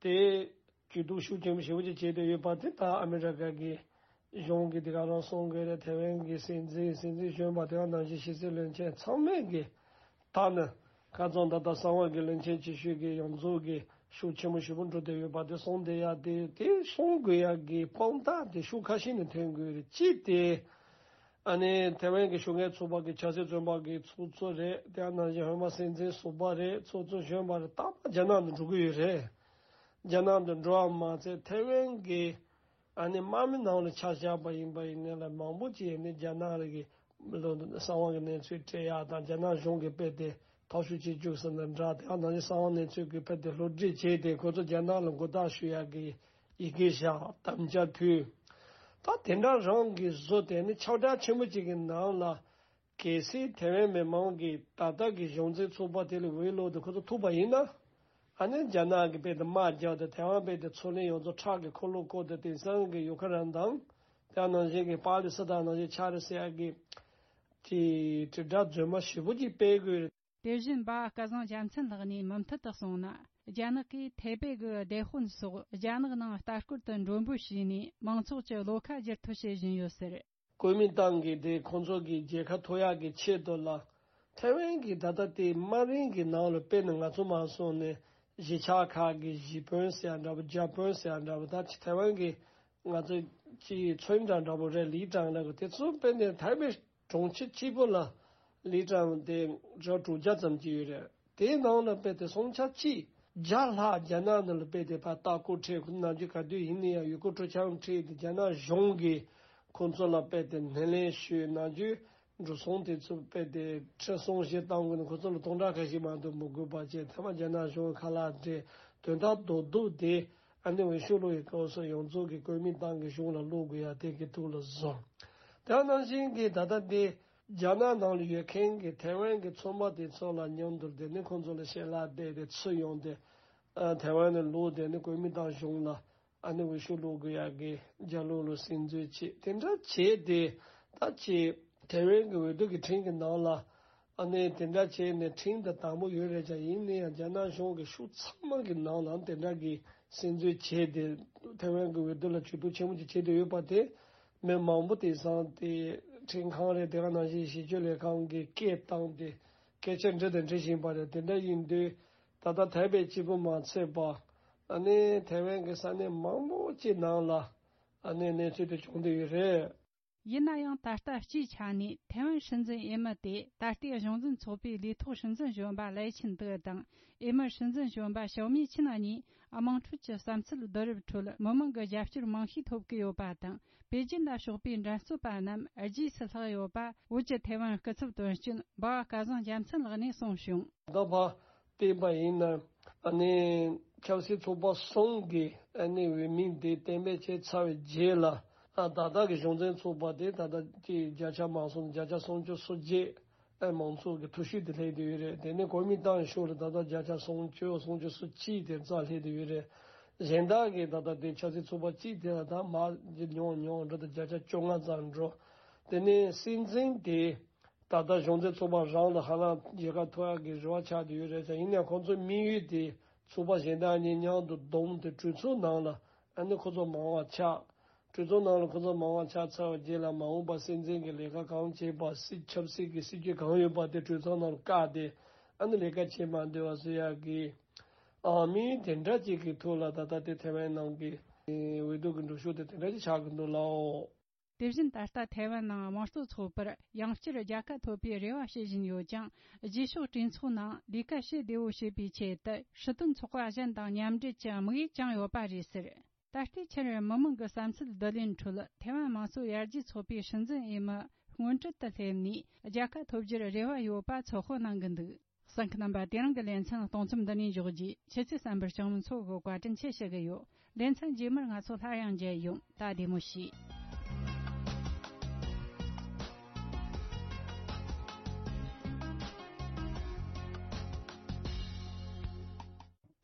དེ་ཇུས་གཏོགས་ཤུགས་ཆེན་པོ་ཞེ་པོ་ཅིག་བྱས་ཏེ་ཡོད་པ་དེ་ད་ཨ་མི་རི་ཀ་གི་གཞུང་གིས་དེ་ག་རང་གསུང་གི་རེད། ཐའེ་ཝན་གྱི་སྲིད་འཛིན་སྲིད་འཛིན་གཞོན་པ་དེ་ག་ནང་བཞིན་ཕྱི་སྲིད་བློན་ཆེན་ཚང་མས་གི་ད་ནི་ཁ་རྩང་ད་ལྟ་གསང་བ་གི་བློན་ཆེན་ཆེ་ཤོས་ཀྱི་ཡོངས་རྫོགས་ཀྱི་ ཤུགས་ཆེན་པོ་ཞེ་པོ་འགྲོ་བསྡད་ཡོད་པ་དེ་སོང་བསྡད་ཡ་དེ་དེ་སོང་དགོས་ཡ་གི་དཔང་རྟགས་དེ་ཤུགས་ཁ་ཤས་ནས་ཐོན་དགོས་རེད། གཅིག་དེ་ཨ་ནི་ཐའེ་ཝན་གྱི་ཤུགས་རྐྱེན་ཚོགས་པ་གི་ཆབ་སྲིད་བཙོན་པ་གི་ཚོགས་གཙོ་རེད། དེ་ནང་བཞིན་ཧོན་མ་སྲིད་འཛིན་ཟུར་པ་རེད། ཚོགས་གཙོ་གཞོན་པ་རེད། རྟག་པར་རྒྱ་ནག་ཏུ་འགྲོ་གི་ཡོད་རེད། རྒྱ་ནག་ཏུ་འགྲོ་བ་མ་ཚད་ཐའེ་ཝན་གྱི་ཨ་ནི་དམག་མི་ནང་ལ་ཆ་བཞག་པ་ཡིན་པ་ཡིན་ནའི་ལ་མང་པོ་ཅིག་ཡིན་ནའི་རྒྱ་ནག་ལ་གི་གསང་བ་གི་གནས་ཚུལ་སྤྲད་ཡག་དང་རྒྱ་ནག་གཞུང་གིས་དཔེ་དེ་ཐོ་ཤུ་བྱེད་བཅུག་ཟེར་ན་འདྲ། དེ་ནང་བཞིན་གསང་བ་གནས་ཚུལ་གྱི་དཔེ་དེ་བསླུ་བྲིད་བྱས་ཏེ་ཁོ་ཚོ་རྒྱ་ནག་ལ་མགོ་བཏགས་ཞུ་ཡག་གི་ཡི་གེ་བཞག་དམ་བཅའ་ཕུལ། ད་དེ་འདྲ་རང་གི་བཟོ་དེ་ནི་ཁྱབ་བསྒྲགས་ཆེན་པོ་ཅིག་གི་ནང་ལ་གལ་སྲིད་ཐའེ་ཝན་མི་མང་གིས་ད་ལྟ་གི་གཞུང་འཛིན་ཚོགས་པ་དེ་ལ་འོས་བླུགས་ཏེ་ཁོ་ཚོ་ཐུག་པ་ཡིན་ན། ཨ་ནི་རྒྱ་ནག་གི་དཔེ་དེ་དམག་རྒྱག་དེ་ཐའེ་ཝན་དཔེ་དེ་མཚོ་གླིང་ཡོངས་རྫོགས་ཁྲག་གི་འཁོར་ལོ་བསྐོར་ཏེ་དེང་སང་གི་ཡུ་ཁ་རན་དང་དེ་ནང་བཞིན་གྱི་པ་ལི་སི་ཐན་ནང་བཞིན་ཆགས་རེད་ཟེར་ཡག་གི་དེ་དྲིལ་བསྒྲགས་རྫུན་མ་ཞེ་པོ་ཅིག་སྤེལ་དགོས་རེད། དེ་བཞིན་འབའ་སྐལ་བཟང་རྒྱལ་མཚན་ལགས་ནས་མུ་མཐུད་དུ་གསུངས་ན། རྒྱ་ནག་གིས་ཐའེ་པེ་གི་སྡེ་དཔོན་སོགས་རྒྱ་ནག་ནང་ལྟ་སྐོར་དུ་མགྲོན་འབོད་བྱས་ནས་མང་ཚོགས་ཀྱི་བློ་ཁ་བསྒྱུར་ཐབས་བྱེད་བཞིན་ཡོད་ཟེར། གོ་མིན་ཏང་གིས་དེ་ཁོང་ཚོ་གི་རྒྱལ་ཁ་ཐོབ་ཡག་གི་ཆེད་དུ་ལ། ཐའེ་ཝན་གྱི་ད་ལྟ་དེ་དམའ་རིམ་གྱི་ནང་ལ་དཔེར་ན་ང་ཚོ་མ་སོང་ནས་གཞིས་ཆགས་ཁག་གི་གཞིས་དཔོན་ཟེར་ཡ་འདྲ་པོ་རྒྱ་དཔོན་ཟེར་ཡ་འདྲ་པོ་ད་ཆ་ཐའེ་ཝན་གྱི་ང་ཚོ་ཅིག་ཚོན་ཀྲང་འདྲ་པོ་རེད། ལི་ཀྲང་ལ་གི་དེ་ཚོ་དཔེར་ན་ཐའེ་པེ་གྲོང་ཁྱེར་གཅིག་པོ་ལ་ལི་ཀྲང་དེ་ར་དྲུག་བརྒྱ་ཙམ་ཅིག་ཡོད་རེད། དེའི་ནང་ལ་དཔེ་དེ་སུམ་ཆ་གཅིག་བརྒྱ་ལྷག་རྒྱ་ནག་ནང་ལ་དཔེ་དེ་ཕར་ལྟ་སྐོར་ཁྲིད་ཁོ་ནམ་རྒྱུན་ག་དུས་ཡིན་ན་ཡང་ཡུལ་སྐོར་སྤྲོ་འཆམ་ཁྲིད་དེ་རྒྱ་ནག་གཞུང་གིས་ཁོང་ཚོ་ལ་དཔེ་དེ་སྣེ་ལེན་ཞུས། ནམ་རྒྱུན་འགྲོ་སོང་དེ་ཚོ་དཔེ་དེ་ཁྲི་སྲོང་བཞི་བཏང་དགོས་ན་ཁོ་ཚོ་ལ་སྟོང་ཕྲག་ཁ་ཤས་མ་གཏོགས་མི་དགོས་པ་བྱས། ཐ་མ་རྒྱ་ནག་གཞུང་ཁ་ལག་སྤྲད། དོན་དག་རྡོག་རྡོག་དེ་ཨ་ནི་འོས་ཤོག་བླུག་ཡི་སྐབས་སུ་ཡོངས་རྫོགས་ཀྱི་གོ་མིན་ཏང་གི་གཞུང་ལ་བླུག་དགོས་ཡ་དེ་གི་ཐུགས་ལ་བཟུང་། དེ་ནང་བཞིན་གྱི་ད་ལྟ་དེ། རྒྱ་ནག་ནང་ལ་ཡོད་མཁན་གྱི་ཐའེ་ཝན་གྱི་ཚོང་པ་དེ་ཚོ་ལ་མཉམ་དུ་དེ་ནི་ཁོང་ཚོ་ལ་ཞལ་ལག་བསྡད་དེ་ཚུར་ཡོང་སྟེ་ཨ་ཐའེ་ཝན་ནས་ལོག་དེ་ནི་གོ་མིན་ཏང་གཞུང་ལ་ཨ་ནི་འོས་ཤོག་བླུག་དགོས་ཡག་གི་རྒྱ་ལོ་ལ་སེམས་འཛུལ་བྱེད་དེ་འདྲ་བྱས་ཏེ་ད་ཅི་ཐའེ་ཝན་གྱི་འོས་བསྡུ་གི་ཁྲིམས་ཀྱི་ནང་ལ་ཨ་ནི་དེ་འདྲ་བྱས་ནས་ཁྲིམས་དང་དམ་པོ་ཡོད་རེད་ཀྱང་ཡིན་ན་ཡང་རྒྱ་ནག་གཞུང་གི་ཤུགས་ཚང་མ་གི་ནང་ལ་དེ་འདྲ་གི་སེམས་འཛུལ་བྱས་ཏེ་ཐའེ་ཝན་གྱི་འོས་བསྡུ་ལ་ཇུས་གཏོགས་ཆེན་པོ་ཅིག་བྱས་ཏེ་ཡོད་པ་དེ། མི་མང་པོ་དེང་སང་དེ་ཁྲིམས་ཁང་རེད། དེ་ག་ནང་བཞིན་ཞིབ་དཔྱོད་ལས་ཁང་གི་སྐད་བཏང་སྟེ་སྐད་ཆ་འདྲི་དང་འདྲི་བཞིན་པ་རེད། དེ་འདྲ་ཡིན་དུས་ད་ལྟ་ཐའེ་པེ་གཅིག་པུ་མ་ཚད་པ་ཨ་ནི་ཐའེ་ཝན་གྱི་ས་གནས་མང་པོ་ཅིག་ནང་ལ་ཨ་ནི་གནས་ཚུལ་དེ་བྱུང་བསྡད་ཡོད་རེད། ཡིན་ན་ཡང་ད་ལྟ་སྤྱིའི་ཆ་ནས་ཐའེ་ཝན་སྲིད་འཛིན་འོས་མི་དེ་ད་ལྟའི་གཞུང་འཛིན་ཚོགས་པའི་ལས་ཐོག་སྲིད་འཛིན་གཞོན་པ་ལའེ་ཆིན་ཏེ་དང་འོས་མི་སྲིད་འཛིན་གཞོན་པ་ཞའོ་མི་ཆིན་གཉིས་དམངས་ཁྲོད་ཀྱི་བསམ་ཚུལ་བསྡུ་རུབ་ཁྲོད་མི་མང་གི་རྒྱབ་སྐྱོར་མང་ཤོས་ཐོབ་ཀྱི་ཡོད་པ་དང་། པེ་ཅིན་ལ་ཕྱོགས་པའི་འགྲན་རྩོད་པ་རྣམས་རྗེས་སུ་ལྷག་ཡོད་པ་བོད་ཀྱི་ཐའེ་ཝན་སྐུ་ཚབ་དོན་གཅོད་འབའ་བ་སྐལ་བཟང་རྒྱལ་མཚན་ལགས་ནས་གསུངས་བྱུང་། ད་བ་བསྟན་པ་ཡིན་ན་ཨ་ནི་ཆབ་སྲིད་ཚོགས་པ་གསུམ་གྱི་ཨ་ནི་འོས་མི་དེ་གཏན་འབེབས་བྱས་ཚར་བའི་རྗེས་ལ་ཨ་ད་ལྟ་གི་གཞུང་འཛིན་ཚོགས་པ་དེ་ད་ལྟ་ཀྱི་བརྒྱ་ཆ་མང་སོང་བརྒྱ་ཆ་སུམ་ཅུ་སོ་བརྒྱད་ཨ་མང་ཚོགས་ཀྱི་ཐུགས་ཤུགས་དེ་སླེབས་བསྡད་ཡོད་རེད། དེ་ནས་གོ་མིན་ཏང་ཤོག་ལ་ད་ལྟ་བརྒྱ་ཆ་སུམ་ཅུ་སུམ་ཅུ་སོ་གཅིག་དེ་རྩ་སླེབས་བསྡད་ཡོད་རེད། གཞན་དག་གི་ད་ལྟ་དེ་ཆབ་སྲིད་ཚོགས་པ་གཅིག་དེ་ལ་ད་མར་ཉུང་ཉུང་འགྲོ་དང་བརྒྱ་ཆ་བཅོ་ལྔ་ཙམ་འགྲོ། དེ་ནས་སྲིད་འཛིན་དེ། ད་ལྟ་གཞུང་འཛིན་ཚོགས་པ་རང་ལ་ཧ་ལམ་རྒྱལ་ཁ་ཐོབ་ཡག་གི་རེ་བ་ཆགས་བསྡད་ཡོད་རེད་ཙང་། ཡིན་ནའང་ཁོང་ཚོའི་དམིགས་ཡུལ་དེ་ཚོགས་པ་གཞན་དག་གཉིས་མཉམ་དུ་བསྡོམས་ཏེ་གྲོས་ཚོགས་ནང་ལ་ཨ་ནི་ཁོ་ཚོ་མང་བ་ཆགས། གྲོས་ཚོགས་ནང་ལ་ཁོ་ཚོ་མང་བ་ཆགས་ཚར་བའི་རྗེས་ལ་མ་འོངས་པ་སྲིད་འཛིན་གྱི་ལས་ཀ་གང་བྱེད་པ། སྲིད་ཆབ་སྲིད་ཀྱི་སྲིད་ཇུས་གང་ཡོད་པ་དེ་གྲོས་ཚོགས་ནང་ལ་བཀག་སྟེ་ཨ་ནི་ལས་ཀ་བྱེད་མ་འདོད་པ་བཟོ་ཡག་གི་ཨང་དམིགས་དེ་འདྲ་ཅིག་གི་ཐོག་ལ་ད་ལྟ་དེ་ཐའེ་ཝན་ནང་གི་འོས་བསྡུ་གི་འགྲུལ་བཞུད་དེ་དེ་འདྲ་ཅིག་ཆགས་ཀྱི་འདུག་ལགས། དེ་བཞིན་ད་ལྟ་ཐའེ་ཝན་ནང་དམངས་གཙོ་ཚོགས་པར་ཡང་བསྐྱར་རྒྱལ་ཁ་ཐོབ་པའི་རེ་བ་བྱེད་བཞིན་ཡོད་ཀྱང་། རྗེས་ཕྱོགས་གྲོས་ཚོགས་ནང་ལས་ཀ་བྱེད་བདེ་བོ་བྱེད་པའི་ཆེད་དུ་སྲིད་དོན་ཚོགས་པ་གཞན་དང་མཉམ་འབྲེལ་གྱི་དམིགས་ཡུལ་བཅངས་ཡོད་པ་རེད་ཟེར། ད་ལྟའི་ཆར་མི་མང་གི་བསམ་ཚུལ་བསྡུ་ལེན་ཁྲོད་ཐའེ་ཝན་དམངས་གཙོ་ཡར་རྒྱས་ཚོགས་པའི་སྲིད་འཛིན་འོས་མི་སྔོན་གྲལ་དུ་སླེབས་ནས་རྒྱལ་ཁ་ཐོབ་རྒྱུར་རེ་བ་ཡོད་པ་ཚོད་དཔག་གནང་གི་འདུག་གསན་མཁན་རྣམ་པ། དེ་རིང་གི་ལེ་ཚན་གཏོང་མཚམས་འདི་ནས་འཇོག་རྒྱུ། ཁྱེད་ཚོས་གསན་པར་སྤྱང་མོ་མཚོ་གིས་བཀའ་དྲིན་ཆེ་ཞུ་གི་ཡོད། ལེ་ཚན་རྗེས་མར་ང་ཚོ་སླར་ཡང་མཇལ་ཡོང་། ད་བདེ་མོ་བྱོས།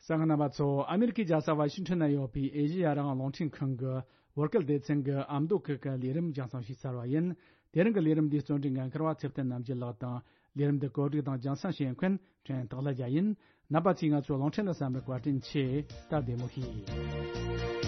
གསན་མཁན་རྣམ་པ་ཚོ། ཨ་མེ་རི་ཁའི་རྒྱལ་ས་ཝ་ཤིང་ཊོན་ན་ཡོད་པའི་ཨེ་ཤེ་ཡ་རང་དབང་རླུང་འཕྲིན་ཁང་གི་བོད་སྐད་སྡེ་ཚན་གྱི་ཨ་མདོ་སྐད་ཀྱི་ལས་རིམ་རྒྱང་སྲིང་ཞུས་ཚར་བ་ཡིན། དེ་རིང་གི་ལས་རིམ་འདིའི་གཙོ་འབྲེལ་འགན་འཁུར་བ་ཚེ་བརྟན་རྣམ་རྒྱལ་ལགས་དང་། ལས་རིམ་འདི་གོ་སྒྲིག་དང་རྒྱང་སྲིང་བྱེད་མཁན་ཕྲན་སྟག་ལྷ་རྒྱལ་ཡིན། རྣམ་པ་ཚོས་ང་ཚོའི་རླུང་འཕྲིན་ལ་གསན་པར་བཀའ་དྲིན་ཆེ། ད་བདེ་མོ་བྱོས།